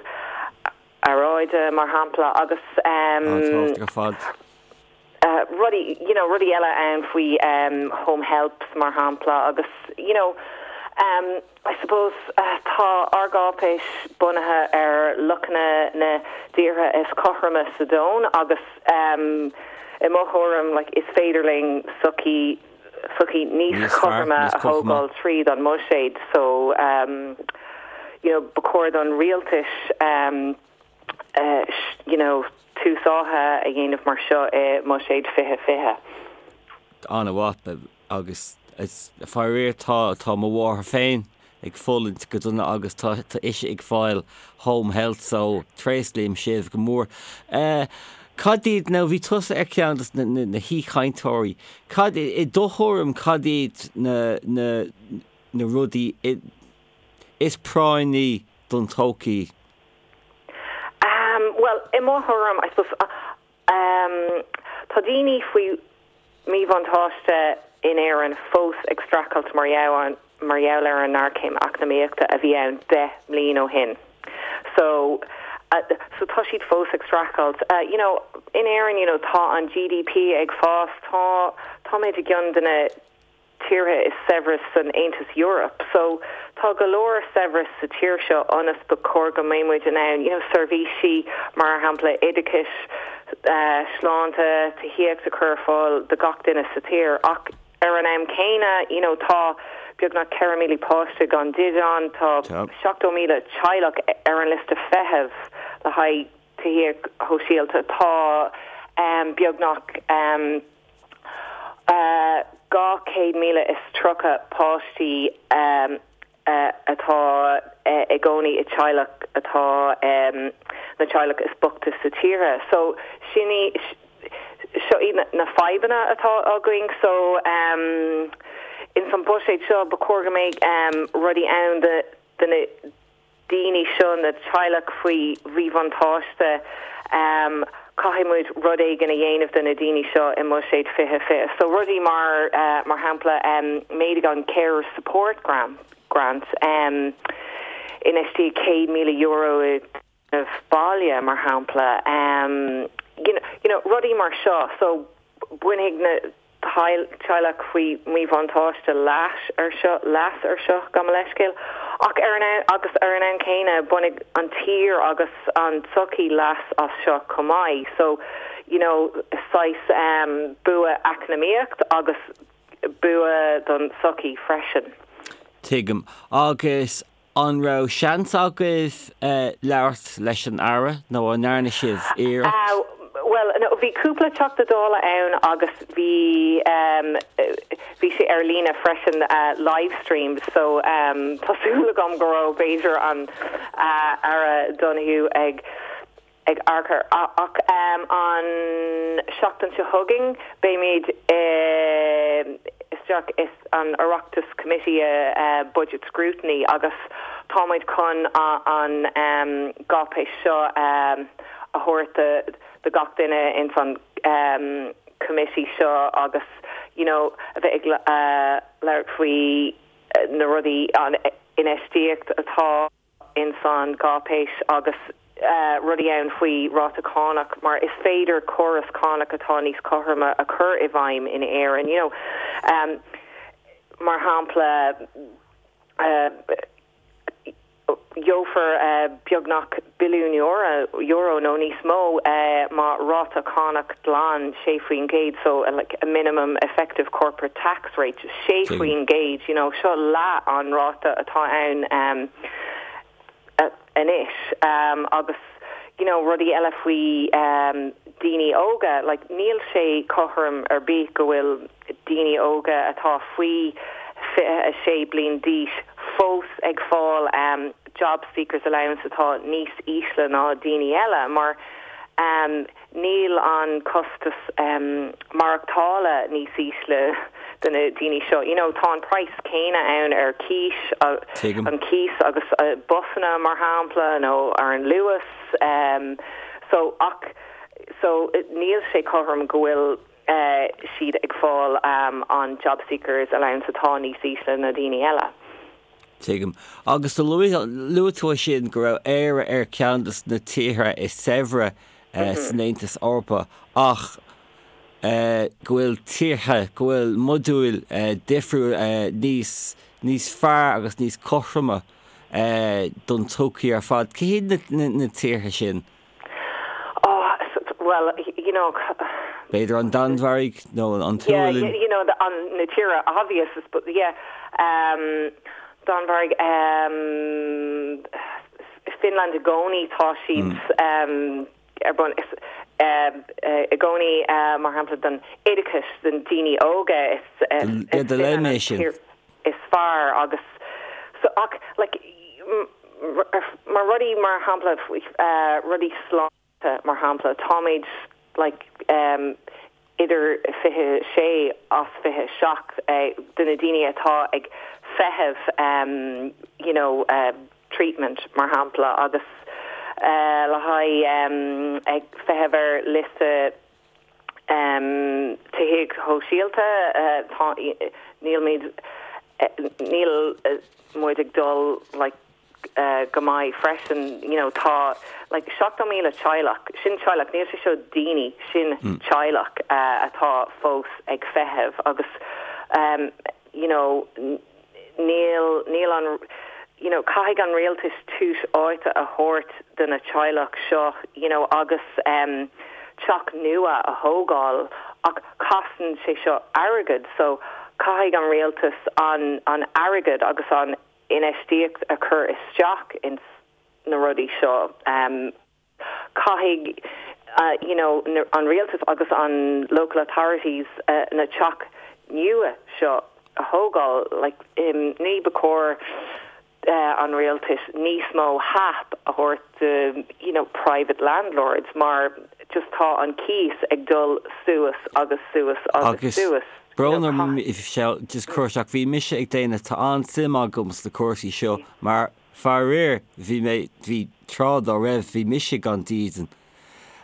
aeráide, mar shampla, agus. An-tábhachtach ar fad. rudaí, you know, rudaí eile ann faoi home helps, mar shampla, agus, you know, I suppose tá ár gcáipéis bunaithe ar luachanna na dtíortha is cothroime sa domhan agus i mo thuairim like is féidir linn sochaí sochaí níos cothroime a thógáil tríd an mbuiséad so you know ba chóir don rialtais you know tús áithe a dhéanamh mar seo i mbuiséad 2020. An-mhaith. Agus faraor tá tá mo mháthair féin ag fulaingt go dona agus tá tá ise ag fáil home health so tréaslaím sibh go mór. Cad iad, nó bhí tusa ar cheann de na na haoichainteoirí, cad i do thuairim cad iad na na na rudaí is práinní don todhchaí? Bhuel, i mo thuairim, I suppose, Tá daoine faoi mhíbhuntáiste in Éirinn fós ag streachailt mar gheall ar an ngéarchéim eacnamaíochta a bhí ann 10 mbliain ó shin. So, so tá siad fós ag streachailt. You know, in Éirinn, you know, tá an GDP ag fás, tá, táimid i gceann de na tíortha is saibhre san Aontas Eorpach. So tá go leor saibhreas sa tír seo ionas ba chóir go mbeidh muid in ann you know seirbhísí mar shampla oideachais, sláinte, tithíocht a chur ar fáil do gach duine sa tír. Ach ar an am céanna you know tá beagnach 4,000 páiste gan dídean, tá 70,000 teaghlach ar an liosta feithimh le haghaidh tithíocht shóisialta, tá beagnach 230 páistí atá i gcónaí i teaghlach atá na teaghlach is boichte sa tír. So sin í seo iad na fadhbanna atá againn. So ins an buiséad seo ba chóir go mbeidh rudaí ann do na daoine seo, na teaghlach faoi mhíbhuntáiste, caithfidh muid rud éigin a dhéanamh do na daoine seo i mBuiséad 2020. So rudaí mar, mar shampla, méadaigh an Carer Support Grant, infheistíodh €100,000 i dtéarnamh baile, mar shampla, you know, rudaí mar seo. So bainfidh na. teaghlach faoi mhíbhuntáiste leas ar seo, leas ar seo, gabh mo leithscéal, ach ar an agus ar an am céanna bainfidh an tír agus an tsochaí leas as seo chomh maith. So, you know, saghas um, bua eacnamaíocht agus bua don tsochaí freisin. Tuigim. Agus An raibh seans agaibh labhairt leis an Aire nó an ndearna sibh iarracht? Bhuel, no, bhí cúpla Teachta Dála ann agus bhí bhí sé ar líne freisin, livestreamed, so tá súil agam go raibh b'fhéidir an Aire Donohoe ag ag amharc air. Ach an seachtain seo chugainn beimid isteach is an Oireachtas Committee Budget Scrutiny agus táimid chun an gcáipéis seo a thabhairt do gach duine ins an committee seo agus you know a bheith ag labhairt faoi na rudaí, an infheistíocht atá. ins an gcáipéis agus rudaí ann faoi ráta cánach mar is féidir córas cánach atá níos cothroime a chur i bhfeidhm in Éirinn you know mar shampla. Gheofar beagnach billiún euro nó níos mó má ráta cánach glan 6% so like a minimum effective corporate tax rate 6% you know seo leath an ráta atá ann anois agus you know rudaí eile faoi daoine óga like níl sé cothrom ar bith go bhfuil daoine óga atá faoi 26 bliain d'aois fós ag fáil Jobseeker's Allowance atá níos ísle ná daoine eile mar níl an costas maireachtála níos ísle do na daoine seo. You know, tá an praghas céanna ann ar cíos, an cíos agus busanna mar shampla nó ar an Luas. So ach so níl sé cothrom go bhfuil siad ag fáil an Jobseeker's Allowance atá níos ísle na daoine eile. Tuigim. Agus do luaigh tú ansin go raibh Éire ar cheann de na tíortha is saibhre san Aontas Eorpach ach go bhfuil tíortha, go bhfuil modúil difriúil níos, níos fearr agus níos cothroime don tsochaí ar fad. Cé hiad na tíortha sin? Oh, well, you know. B'fhéidir an Danmhairg nó an tSualainn? Yeah, you know, an, na tíortha obvious, but yeah. Um, Danmhairg, um, Finland i gcónaí tá siad um, ar bun is um, i gcónaí uh, mar shampla don oideachas don daoine óga is, is, is do léigh mé sin. is fearr agus so ach like mar rudaí mar shampla rudaí sláinte mar shampla táimid like idir 26 as 27 de na daoine atá ag feitheamh you know treatment mar shampla agus le haghaidh ag feitheamh ar liosta Tithíocht shóisialta, tá, nílimid, níl muid ag dul like go maith freisin, you know, tá like 70,000 teaghlach, sin teaghlach, níl sé seo daoine, sin teaghlach atá fós ag feitheamh agus you know, níl, níl an, you know, caithfidh an rialtas tús áite a thabhairt do na teaghlach seo, you know, agus em teach nua a thógáil ach casann sé seo airgead so caithfidh an rialtas an, an airgead agus an infheistíocht a chur isteach ins na rudaí seo. Em. Caithfidh you know an rialtas agus an local authorities na teach nua seo a thógáil like ní ba chóir an rialtas níos mó HAP a thabhairt do you know private landlords mar just tá an cíos ag dul suas agus suas agus suas. Brón orm just cur isteach bhí mise ag déanamh tá an-suim agam sna cúrsaí seo mar Faraor, bhí mé, bhí tráth dá raibh, bhí mise gan dídean.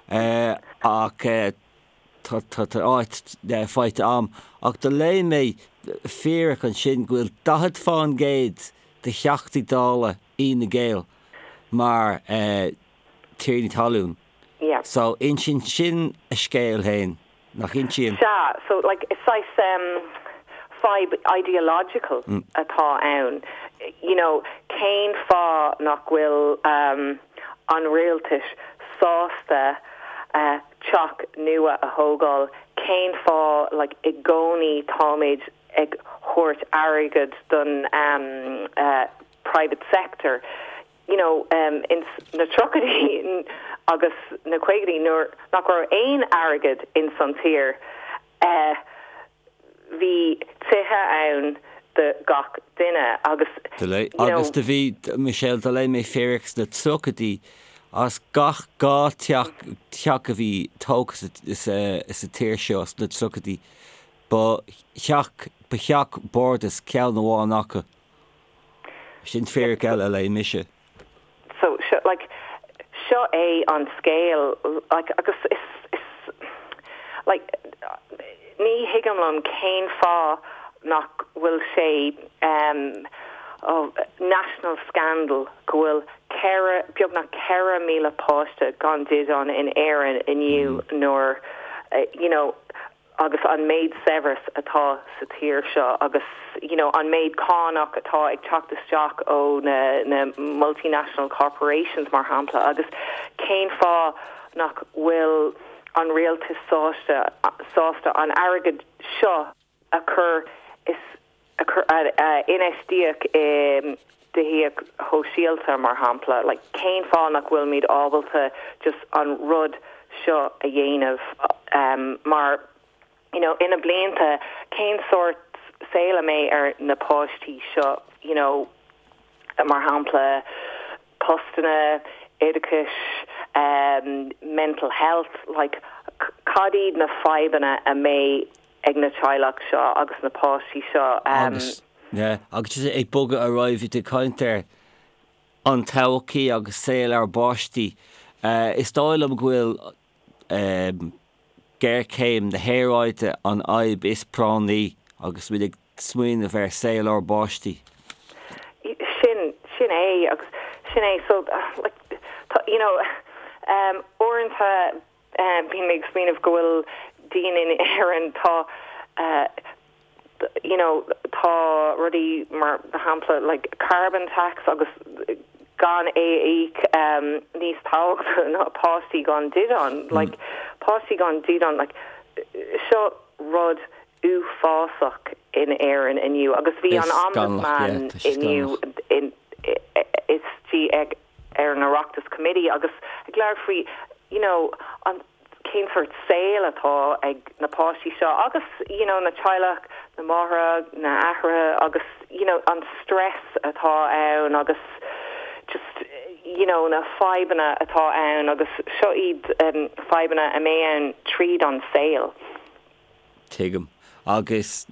Ach tá, tá, tá áit faighte a'm. Ach do léigh mé fíric ansin go bhfuil 40 fán gcéad de Theachtaí Dála Fhine Gael mar tiarnaí talún. So insíonn sin a scéal féin. Nach insíonn? Sea, so like is saghas em fadhb ideological atá ann. You know, cén fáth nach bhfuil em an rialtas sásta eh teach nua a thógáil? Cén fáth like i gcónaí táimid ag thabhairt airgead don em eh private sector? you know, ins na tríochaidí agus na caogaidí nuair nach raibh aon airgead ins an tír, eh, bhí tithe ann do gach duine agus, you know. Agus do bhí, Michelle, do léigh mé fíric sna tríochaidí as gach 2 teach, teach a bhí tógtha sa, sa tír seo sna tríochaidí, ba theach, ba theach bardais ceann amháin acu. Sin fíric eile a léigh mise. So, seo, like, seo é an scéal, like, agus is, is, like, ní thuigim liom cén fáth nach bhfuil sé, um, oh, national scandal go bhfuil ceithre, beagnach 4,000 páiste gan dídean in Éirinn inniu nuair, you know, agus an méid saibhreas atá sa tír seo agus you know an méid cánach atá ag teacht isteach ó na na multinational corporations mar shampla agus cén fáth nach bhfuil an rialtas sásta sásta an airgead seo a chur is a chur a infheistíocht i dtithíocht shóisialta mar shampla like cén fáth nach bhfuilimid ábalta just an rud seo a dhéanamh um mar you know ina blianta cén sórt saol a mbeidh ar na páistí seo you know mar shampla postanna oideachais um mental health like cad iad na fadhbanna a mbeidh ag na teaghlach seo agus na páistí seo. Agus, yeah, agus just ag bogadh ar aghaidh, bhí tú ag caint ar an todhchaí agus saol ár bpáistí. Is dóigh liom go bhfuil géarchéim na haeráide an fhadhb is práinní agus muid ag smaoineamh ar saol ár bpáistí. Sin, sin é agus sin é. So, like, tá, you know, uaireanta, Bíonn mé ag smaoineamh go bhfuil daoine in Éirinn, tá you know tá rudaí mar shampla like carbon tax agus gan é a íoc níos tábhachtaí ná páistí gan dídean. Like páistí gan dídean like seo rud uafásach in Éirinn inniu agus bhí an Ombudsman inniu istigh ag ar an Oireachtas Committee agus ag labhairt faoi you know an cén sórt saol atá ag na páistí seo agus you know na teaghlach, na máithreacha, na haithreacha agus you know an stress atá ann agus just you know na fadhbanna atá ann agus seo iad um, fadhbanna a mbeidh ann tríd an saol. Tuigim. Agus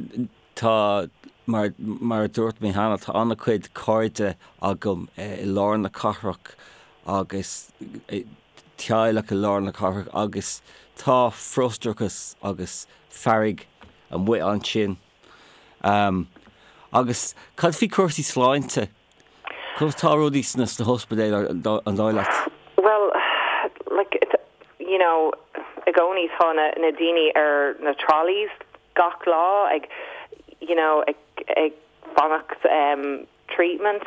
tá, mar, mar a dúirt mé cheana, tá an-chuid cairde agam i lár na cathrach agus teaghlach i lár na cathrach agus tá frustrachas agus fearg amuigh ansin. Agus cad faoi cúrsaí sláinte? Conas tá rudaí sna hospidéil an dóigh leat? Bhuel, like, you know, i gcónaí tá na, na daoine ar na trolleys gach lá ag, you know, ag, ag fanacht um, treatment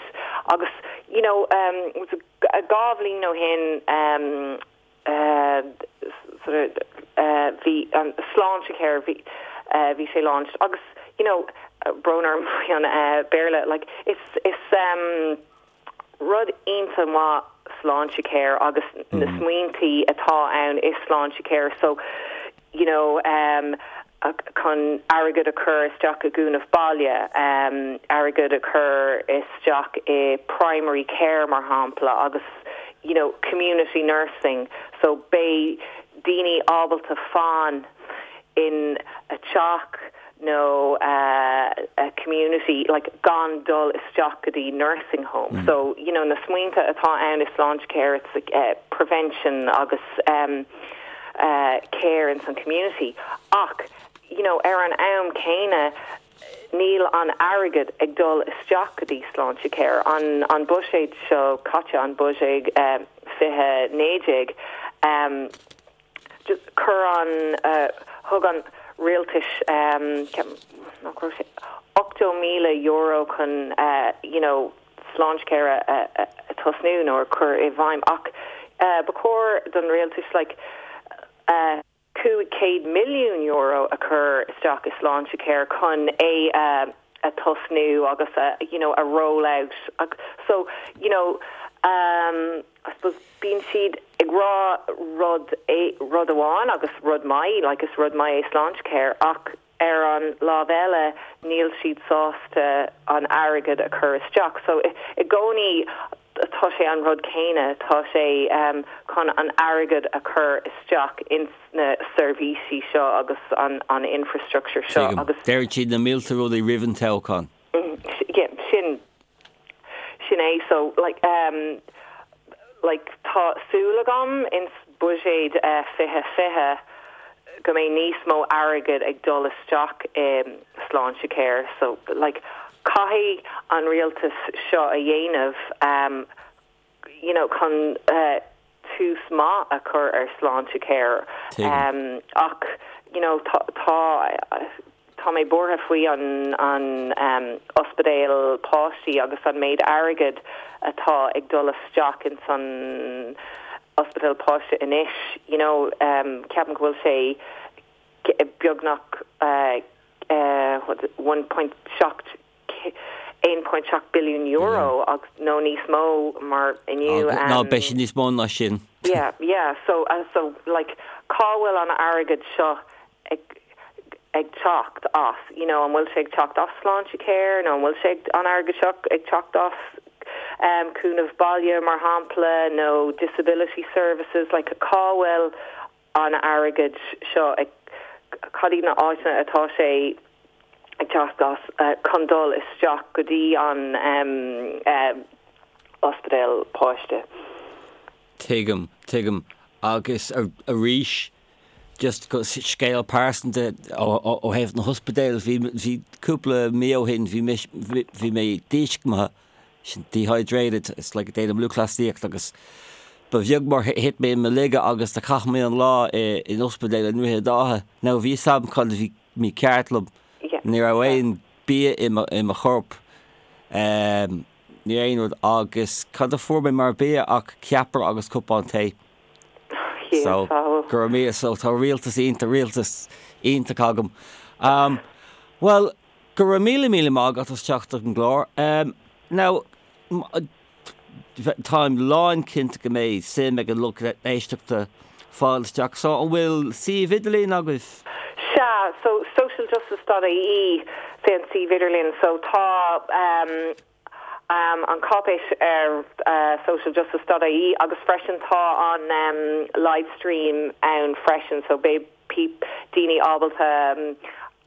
agus, you know, um, 2 bhliain ó shin um, sort of bhí an Sláintecare bhí bhí sé launched agus you know brón orm faoi an Béarla like is is um rud iontach maith Sláintecare agus na smaointí atá ann i Sláintecare so you know um chun airgead a chur isteach i gcúnamh baile, um airgead a chur isteach i primary care mar shampla agus you know community nursing so beidh daoine ábalta fan in a teach nó a community like gan dul isteach go dtí nursing home. So you know na smaointe atá ann i Sláintecare it's like uh, prevention agus um care ins an community ach you know ar an am céanna níl an airgead ag dul isteach go dtí Sláintecare. An an buiséad seo caite, an buiséad 2019, just chuir an thug an rialtais ceapaim nach raibh sé €80,000 chun you know Sláintecare a tosnú nó a chur i bhfeidhm ach ba chóir don rialtas like €500 milliún a chur isteach i Sláintecare chun é a tosnú agus a you know a roll out so you know I suppose bíonn siad ag rá rud rud amháin agus rud maith like is rud maith é Sláintecare ach Ar an lámh eile, níl siad sásta an airgead a chur isteach. So, i gcónaí tá sé an rud céanna, tá sé chun an airgead a chur isteach ins na seirbhísí seo agus an infrastructure seo Tuigim. agus. Deireann siad na mílte rudaí roimh an toghchán. Yeah, sin, sin é. So, like, um, like, tá súil agam ins buiséad 2020 go mbeidh níos mó airgead ag dul isteach i Sláintecare. So, like, caithfidh an rialtas seo a dhéanamh, um, you know, chun, uh, tús maith a chur ar Sláintecare. Tuigim. Ach, you know, tá, tá, tá mé buartha faoi an, an ospidéal páistí agus an méid airgid atá ag dul isteach ins an ospidéal páiste anois, you know, ceapaim go bhfuil sé beagnach 1.7 €1.7 billiún agus nó níos mó mar inniu. Ná beidh sé níos mó ná sin. Yeah, yeah, so, so like cá bhfuil an airgead seo ag ag teacht as, you know, an bhfuil sé ag teacht as Sláintecare nó an bhfuil sé an airgead seo ag teacht as um, cúnamh baile mar shampla nó disability services, like cá bhfuil an airgead seo ag, cad iad na áiteanna atá sé ag teacht as chun dul isteach go dtí an ospidéal páiste. Tuigim, tuigim. Agus arís, just scéal pearsanta ó thaobh na hospidéil, bhí, bhí cúpla mí ó shin, bhí mé, bhí mé díscumtha sin dehydrated, it's like déanaim lúthchleasaíocht agus ba bheag mar thit mé i mo laige agus do chaith mé an lá in ospidéal i nDroichead Átha. Now bhí fhios agam cad a bhí mícheart liom. Ní raibh aon bia i mo, i mo chorp, ní aon rud agus cad a fuair mé mar bia ach ceapaire agus cupán tae. So, go raibh míle, so tá rialtas iontach, rialtas iontach agam. Bhuel, Go raibh míle míle maith agat as teacht ar an gclár. Now, táim lán cinnte go mbeidh suim ag an lucht éisteachta fáil isteach. So, an bhfuil suíomh idirlín agaibh? Sea, so socialjustice dot ie sé an suíomh idirlín. So tá an cáipéis ar socialjustice dot ie agus freisin tá an livestream ann freisin so beidh daoine ábalta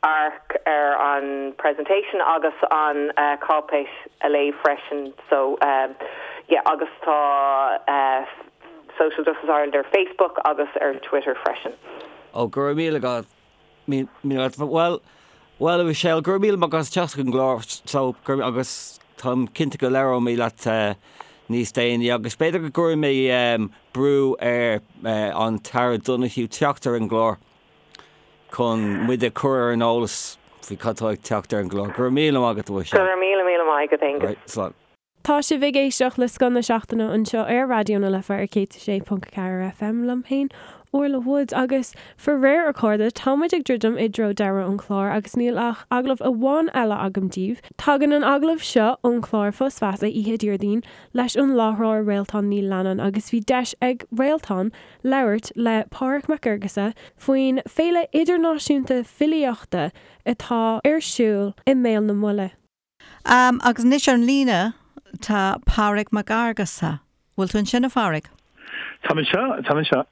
amharc ar an presentation agus an cáipéis a léamh freisin so yeah agus tá Social Justice Ireland ar Facebook agus ar Twitter freisin. Ó go raibh míle agat míle agat bhuel bhuel a Mhichelle go raibh míle maith agat as teacht chuig an gclár so go agus táim cinnte go labhróidh mé leat níos déanaí agus b'fhéidir go gcuirfidh mé brú ar an tAire Donohoe teacht ar an gclár. chun muid a chur ar an eolas faoi cad tá ag teacht ar an gclár. Go raibh míle maith agat, a Mhichelle. Go raibh míle míle maith agat, Aengus. Right, slán. Tá sibh ag éisteacht le Scoth na Seachtaine anseo ar Raidió na Life ar 106.4 FM liom féin, Orla Woods, agus faraor a chairde, tá muid ag druidim i dtreo deireadh an chláir agus níl ach agallamh amháin eile agam daoibh. Tagann an agallamh seo ón chlár Fios Feasa oíche Déardaoin leis an láithreoir Réaltán Ní Leannáin agus bhí deis ag Réaltán labhairt le Pádraig Mac Fhearghusa faoin Féile Idirnáisiúnta Filíochta atá ar siúl i mBéal na Buille. Agus anois ar an líne tá Pádraig Mac Fhearghusa. Bhfuil tú ansin, a Phádraig? Táim anseo, táim anseo.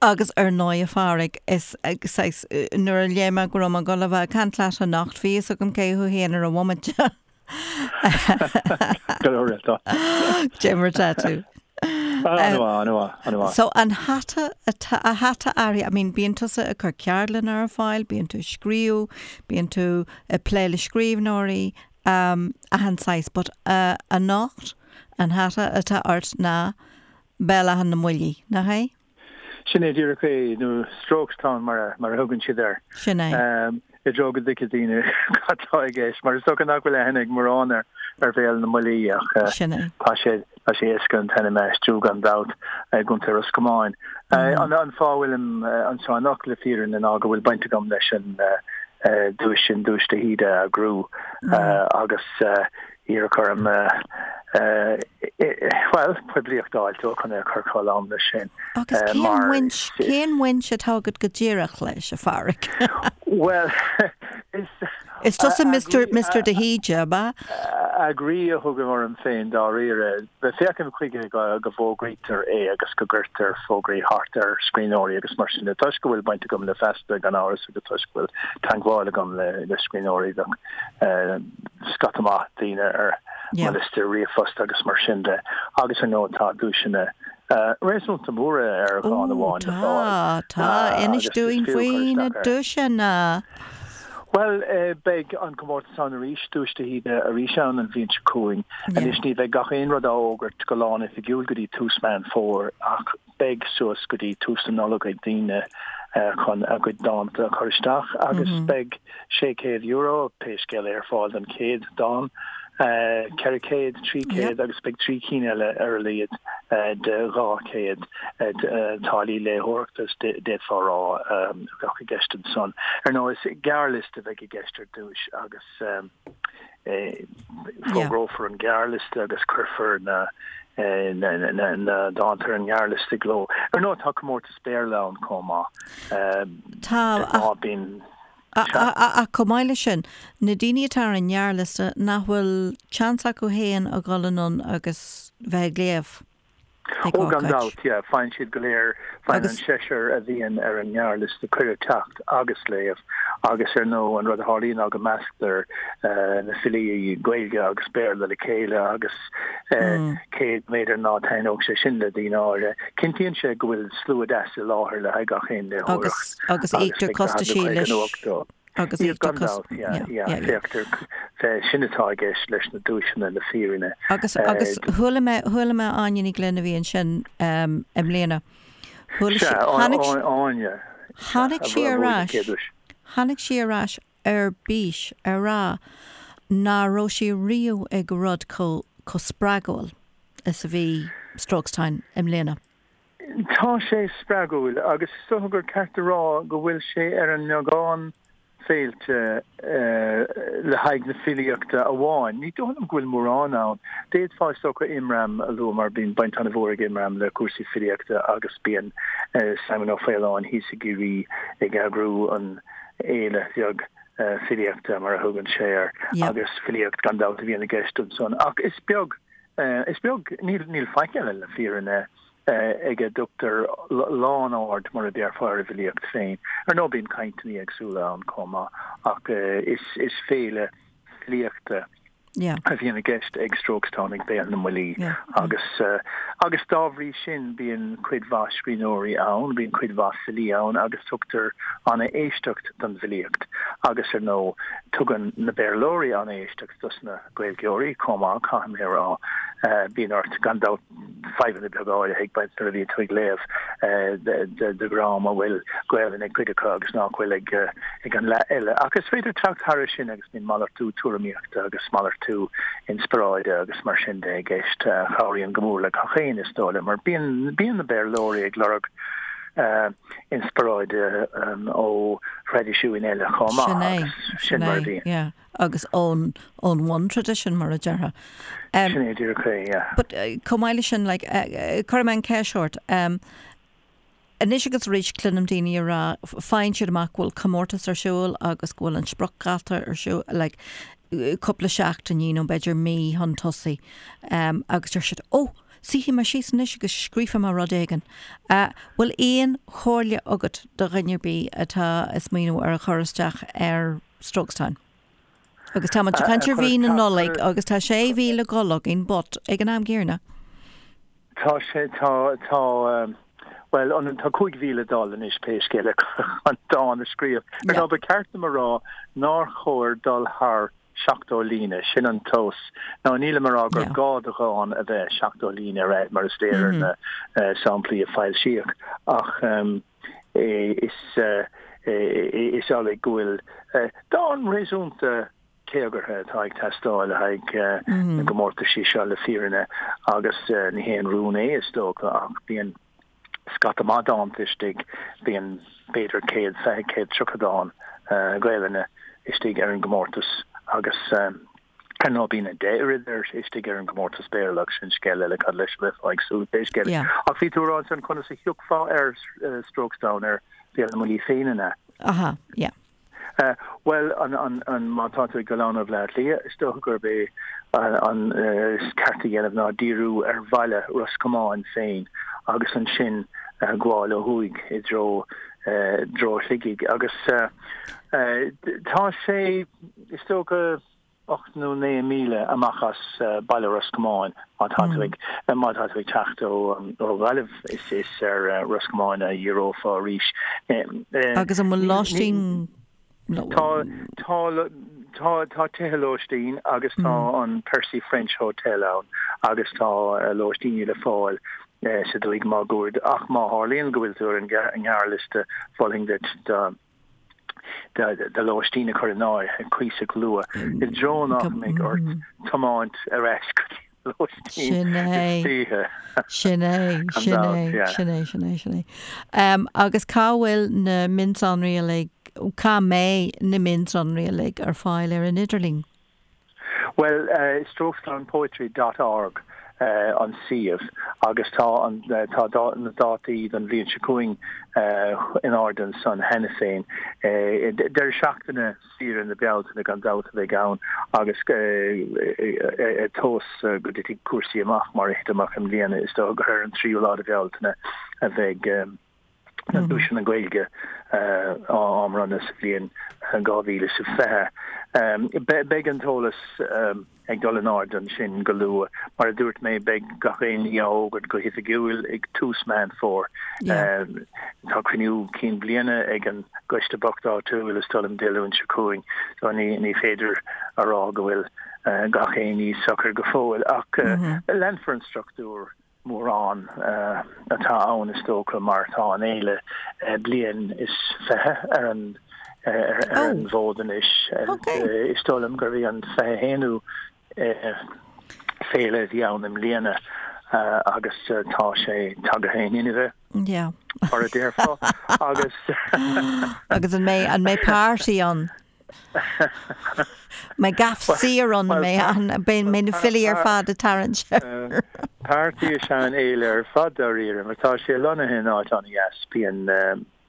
Agus ar ndóigh, a Phádraig, is saghas, nuair a léigh mé go raibh mé ag dul a bheith ag caint leat anocht, bhí fhios agam cé thú féin ar an bhomaite. Go leor tá. Cad é mar atá tú. An-mhaith, an-mhaith, an-mhaith. So an hata atá, a hata air, I mean bíonn tusa ag cur ceardlanna ar fáil, bíonn tú ag scríobh, bíonn tú ag plé le scríbhneoirí, um, achan saghas, but uh, anocht an hata atá ort ná Béal Átha na mBuillí, nach é? Sin é díreach é, nó Strokestown mar a thugann siad air. Sin é. I dtreo go dtuigfidh daoine cad tá i gceist, mar is dócha nach bhfuil aithne ag mórán ar Bhéal na mBuillí ach Sin é. tá sé tá sé éasca an t-ainm a aistriú gan dabht i gContae Ros Comáin. An fáth a bhfuilim anseo anocht le fírinne ná go bhfuil baint agam leis an duais sin, Duais de hÍde a eagrú agus Iarradh orm, bhuel, poiblíocht a fháil dó chun é a chur chomh lán leis sin. Agus cén bhaint, cén bhaint atá agat go díreach leis, a Phádraig? Bhuel, is. Is tusa Mister, Mister de hÍde, ab ea? Eagraí a thugaim orm féin dáiríre. Féachaim chuige go bhfógraítear é agus go gcuirtear fógraí thart ar scríbhneoirí agus mar sin de. Toisc go bhfuil baint agam le Feasta gan amhras agus toisc go bhfuil teagmháil agam le scríbhneoirí, bheadh scata maith daoine ar mo liosta ríomhphost agus mar sin de. Agus ar ndóigh tá duaiseanna réasúnta móra ar dhán amháin le fáil. Tá, tá. Inis dúinn faoi na duaiseanna. Bhuel, beidh an comórtas ann arís, Duais de hÍde arís ann an bhliain seo chugainn. Anois ní bheidh gach aon rud á fhógairt go lán-oifigiúil go dtí tús Meán Fómhair ach beidh suas go dtí tús na Nollag ag daoine chun a gcuid dánta a chur isteach agus beidh €600, pé scéal é, ar fáil don chéad dán. 400, 300 agus beidh 3 cinn eile ar a laghad de 200 táillí léitheoireachta, d'fhéadfá a rá, a bheadh i gceist ansan. Ar ndóigh, is gearrliosta a bheidh i gceist ar dtúis agus fógrófar an gearrliosta agus cuirfear na dánta ar an ngearrliosta i gcló. Ar ndóigh, tá comórtas Béarla ann chomh maith. Tá, ach. Bíonn. Ach chomh maith leis sin, na daoine atá ar an ngearrliosta, nach bhfuil seans acu féin a dhul anonn agus bheith ag léamh ag Ó, gan ócáid. dabht, yeah. Faigheann siad go léir, faigheann an seisear a bhíonn ar an ngearrliosta cuireadh teacht agus léamh agus ar ndóigh an rud a tharlaíonn ná go measctar na filí Gaeilge agus Béarla le chéile agus cé b'fhéidir ná taitneodh sé sin le daoine áirithe, Cinntíonn sé go bhfuil slua deas i láthair le haghaidh gach aon léitheoireacht agus íoctar costaisí leis agus íoctar costais yeah yeah féachtar sin atá i gceist leis na duaiseanna le fírinne. Agus agus chuala mé chuala mé Áine Ní Ghlinn a bhí ansin i mbliana. Chuala sí tháinig Áine tháinig sí ar ais tháinig sí ar ais ar bís ag rá ná raibh sí riamh ag rud chomh chomh spreagúil. is a bhí Strokestown i mbliana. Tá sé spreagúil agus is dócha gur ceart a rá go bhfuil sé ar an mbeagán féilte le haghaidh na filíochta amháin. Ní dóigh liom go bhfuil mórán ann. D'fhéadfá is dócha Imram a lua mar bíonn baint an-mhór ag Imram le cúrsaí filíochta agus bíonn Simon Ó Faoláin thíos i gCiarraí ag eagrú an fhéile bheag filíochta mar a thugann sé air agus filíocht gan dabht a bhíonn i gceist ansan. Ach is beag, is beag, níl, níl faic eile le fírinne ag a dtugtar lán-aird mar a déarfá ar an bhfilíocht féin. Ar ndóigh bíonn cainteanna éagsúla ann chomh maith ach is, is féile filíochta a bhíonn i gceist ag Strokestown ag Béal na mBuillí agus agus dá bhrí sin bíonn cuid mhaith scríbhneoirí ann, bíonn cuid mhaith filí ann agus tugtar an-éisteacht don bhfilíocht agus ar ndóigh tugann na Béarlóirí an-éisteacht dos na Gaeilgeoirí chomh maith, caithfidh mé a rá. Bíonn ort gan dabht fadhbanna beaga áirithe ag baint nuair a bhíonn tú ag léamh de dhream a bhfuil Gaelainn ag cuid acu agus nach bhfuil ag an leath eile. Ach is féidir teacht thairis sin agus bíonn malartú tuairimíochta agus malartú inspioráide agus mar sin de i gceist a chabhraíonn go mór le gach éinne is dóigh liom mar bíonn bíonn na Béarlóirí ag lorg inspioráide ó thraidisiúin eile chomh maith agus sin mar a bhíonn. agus ón ón bhun-tradition mar a déarfá. Sin é díreach é, yeah. But chomh maith leis sin, like, cuirfidh mé an cheist ort, anois agus arís cluinim daoine ag rá, faigheann siad amach go bhfuil comórtas ar siúl agus go bhfuil an spriocdháta ar siúl, like, cúpla seachtainí nó b'fhéidir mí chun tosaigh, agus deir siad, oh, suífidh mé síos anois agus scríobhfaidh mé rud éigin. Bhfuil aon chomhairle agat do dhuine ar bith atá ag smaoineamh ar a chur isteach ar Strokestown. Agus tá muid ag caint ar mhí na Nollag agus tá sé mhí le dhul againn but ag an am gcéanna. Tá sé, tá, tá, bhuel, an, tá 5 mhí le dul anois pé scéal é chun dán a scríobh. Ar ndóigh, ba cheart dom a rá nár chóir dul thar 70 líne, sin an tomhas. Now nílim ag rá gur gá do dhán a bheith 70 líne ar fhad mar is léir ar na samplaí a foilsíodh ach, Is amhlaidh go bhfuil dán réasúnta téagartha atá ag teastáil le haghaidh na gcomórtaisí seo le fírinne agus ní haon rún é is dócha ach bíonn scata maith dánta istigh, bíonn b'fhéidir 120, 130 dán Gaelainne istigh ar an gcomórtas agus Ar ndóigh bíonn a 10 oiread ar istigh ar an gcomórtas Béarla ach sin scéal eile cad leis a bheifeá ag súil pé scéal é. Ach bhí tú ag rá ansan conas a thiocfá ar Strokestown ar Bhéal na mBuillí féin an ea? Aha, yeah. Bhuel, an, an, an, má tá tú ag dul ann ó Bhleá Cliath, is dócha gurb é an is ceart a dhéanamh ná díriú ar bhaile Ros Comáin féin agus ansin gabháil ó thuaidh i dtreo, dtreo Shligigh. Agus tá sé, Is dócha 8 nó 9 míle amach as baile Ros Comáin má tá tú ag má tá tú ag teacht ó Ghaillimh is is ar Ros Comáin a dhíreofá arís. Agus an bhfuil lóistín? Tá, tá, tá, tá tithe lóistín agus tá an Percy French Hotel ann agus tá lóistíní le fáil sa dúiche máguaird ach má tharlaíonn go bhfuil tú ar an ngearrliosta mholfainn duit do do lóistín a chur in áirithe cuíosach luath i dtreo nach mbeidh ort tiomáint ar ais go dtí an lóistín Sin é. istoíche. Sin é, Gan sin dabht, é, yeah. sin é, sin é, sin é. Um, agus cá bhfuil na mionsonraí uilig, cá mbeidh na mionsonraí uilig ar fáil ar an idirlíon? Bhuel, strokestownpoetry dot org an suíomh agus tá an tá na dátaí don bhliain seo chugainn in airde ansan cheana féin. Deireadh seachtaine saoire na Bealtaine gan dabht a bheidh ann agus tomhas go dtitfidh cúrsaí amach mar a thit amach i mbliana is dócha gur ar an tríú lá de Bhealtaine a bheidh na duaiseanna Gaeilge á mbronnadh sa bhliain 2020. Beidh an t-eolas ag dul in airde ansin go luath. Mar a dúirt mé, beidh gach aon ní á fhógairt go hoifigiúil ag tús Meán Fómhair. Tá cruinniú cinn bliana ag an gcoiste bocht áitiúil is dóigh liom Dé Luain seo chugainn, so ní féidir a rá go bhfuil gach aon ní socair go fóill. Ach leanfar an struchtúr. mórán atá ann is dócha mar tá an fhéile bliain is 20 ar an ar an bhfód anois. Is dóigh liom gurbh í an 21ú féile a bhí ann i mbliana agus tá sé tagtha in inmhe mar a déarfá agus Agus an mbeidh an mbeidh party ann? Mbeidh gaff saor ann, mbeidh na filí ar fad ag tarraingt air. Party is ea an fhéile ar fad dáiríre, mar tá sé lonnaithe in áit an-dheas, bíonn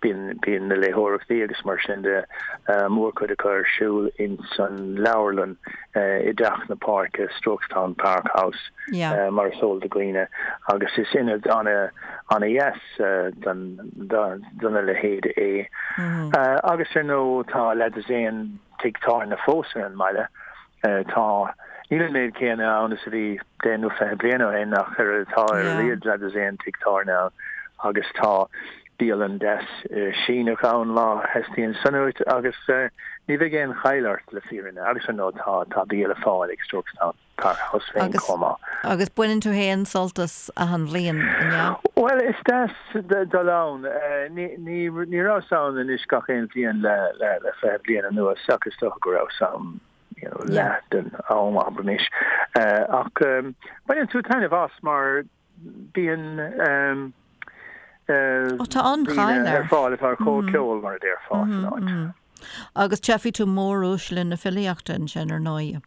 bíonn na léitheoireachtaí agus mar sin de, mórchuid acu ar siúl ins an leabharlann i dTeach na Páirce, Strokestown Park House, mar is eol do dhaoine, agus is ionad an-dheas do na leithéid é. Agus ar ndóigh tá leathdosaen tigh tábhairne fós ar an mbaile. Tá, níl an méid céanna ann is a bhí deich nó 20 bliain ó shin ach ar tá ar a laghad leathdosaen tigh tábhairne ann agus tá bialann deas Síneach ann má theastaíonn san uait agus ní bheidh aon chaill ort le fírinne agus ar ndóigh tá tá bia le fáil ag Strokestown. Park House féin chomh maith. Agus baineann tú féin sult as achan bhliain, an ea? Bhuel, is deas dul ann. Ní rabhas ann anois gach aon bhliain le 20 bliain anuas ach is dócha go rabhas ann leath den am, abraimis. Ach baineann tú taitneamh as mar bíonn daoine ar fáil atá ar comhcheol, mar a déarfá, san áit. Agus tchífidh tú móruaisle na filíochta ansin, ar ndóigh.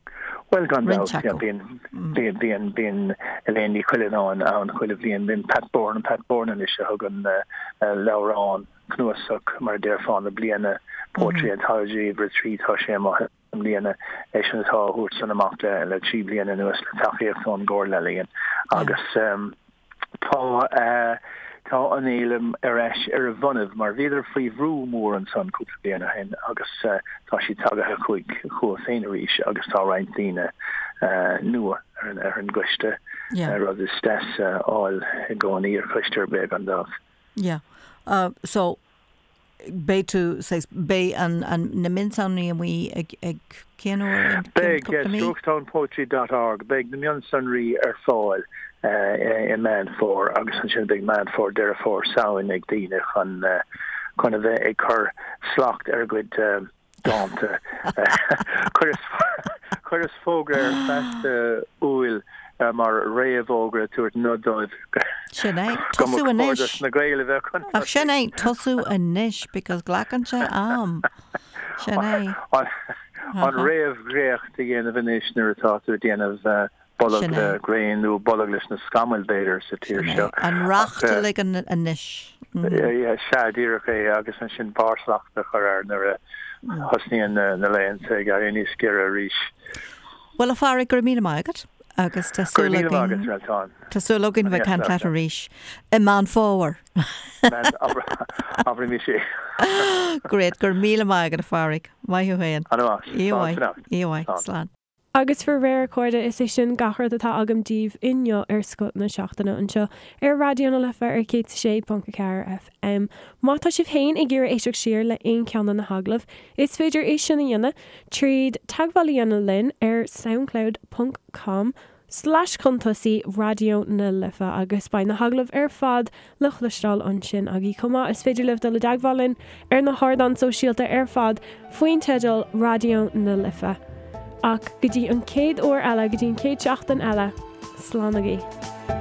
Bhuel, gan dabht, yeah, bíonn, bíonn, bíonn, bíonn Elaine Ní Chuilleanáin ann chuile bhliain, bíonn Pat Bourne, Pat Bourne anois a thugann leabhrán, cnuasach, mar a déarfá, na bliana, Poetry Anthology, uimhir 3, tá sé amuigh. i mbliana, eisean atá á thabhairt san amach le 3 bliana anuas le tacaíocht ón gComhairle Ealaíon agus tá tá an fhéile ar ais ar a bhonnaibh mar bhíodar faoi bhrú mór ansan cúpla bliain ó shin agus tá siad tagaithe chucu féin arís agus tá roinnt daoine nua ar an ar an gcoiste, rud is deas a fháil i gcónaí ar choiste ar bith gan dabht. Yeah. So Beidh tú, saghas, beidh an, an, na mionsonraí amuigh ag, ag cén uair, in cén Beidh, cúpla mí? strokestownpoetry dot org, beidh na mionsonraí ar fáil i Meán Fómhair agus ansin beidh Meán Fómhair, Deireadh Fómhair, Samhain ag daoine chun, chun a bheith ag cur slacht ar a gcuid dánta. Chuireas fógra ar Feasta Iúil mar réamhfhógra ag tabhairt nod dóibh Sin é. go mba Tosú chóir anois. dos na Gaeil a bheith chun Ach sin tosaigh. é, tosú anois because glacann sé am. Sin é. An réamhdhréacht a dhéanamh anois nuair atá tú ag déanamh bolg Sin le é. gréin nó bolg leis na scamaill, b'fhéidir, sa tír Sin é. seo. An Ach racht a ligean anois. sea, díreach é, agus ansin barrshlacht a chur air nuair a thosnaíonn na laethanta ag éirí níos giorra arís. Bhuel, a Phádraig, go raibh míle maith agat agus tá Go raibh súil míle maith agat, againn, Réaltán. tá súil againn bheith ag caint leat arís i Meán Fómhair. Abraimis é. Great, go raibh míle maith agat, a Phádraig. Maith thú féin. Ana mhaith. Oíche Slán mhaith. fanacht. Oíche mhaith. Slán. Slán. Agus faraor, a chairde, is é sin gach rud atá agam daoibh inniu ar Scoth na Seachtaine anseo ar Raidió na Life ar 106.4 FM. Má tá sibh féin ag iarraidh éisteacht siar le aon cheann de na hagallaimh, is féidir é sin a dhéanamh tríd teagmháil a dhéanamh linn ar soundcloud ponc com slash chun tosaigh Raidió na Life agus beidh na hagallaimh ar fad le cloisteáil ansin agaibh chomh maith. Is féidir libh dul i dteagmháil linn ar na hardáin sóisialta ar fad faoin teideal Raidió na Life. Ach go dtí an chéad uair eile, go dtí an chéad seachtain eile, slán agaibh.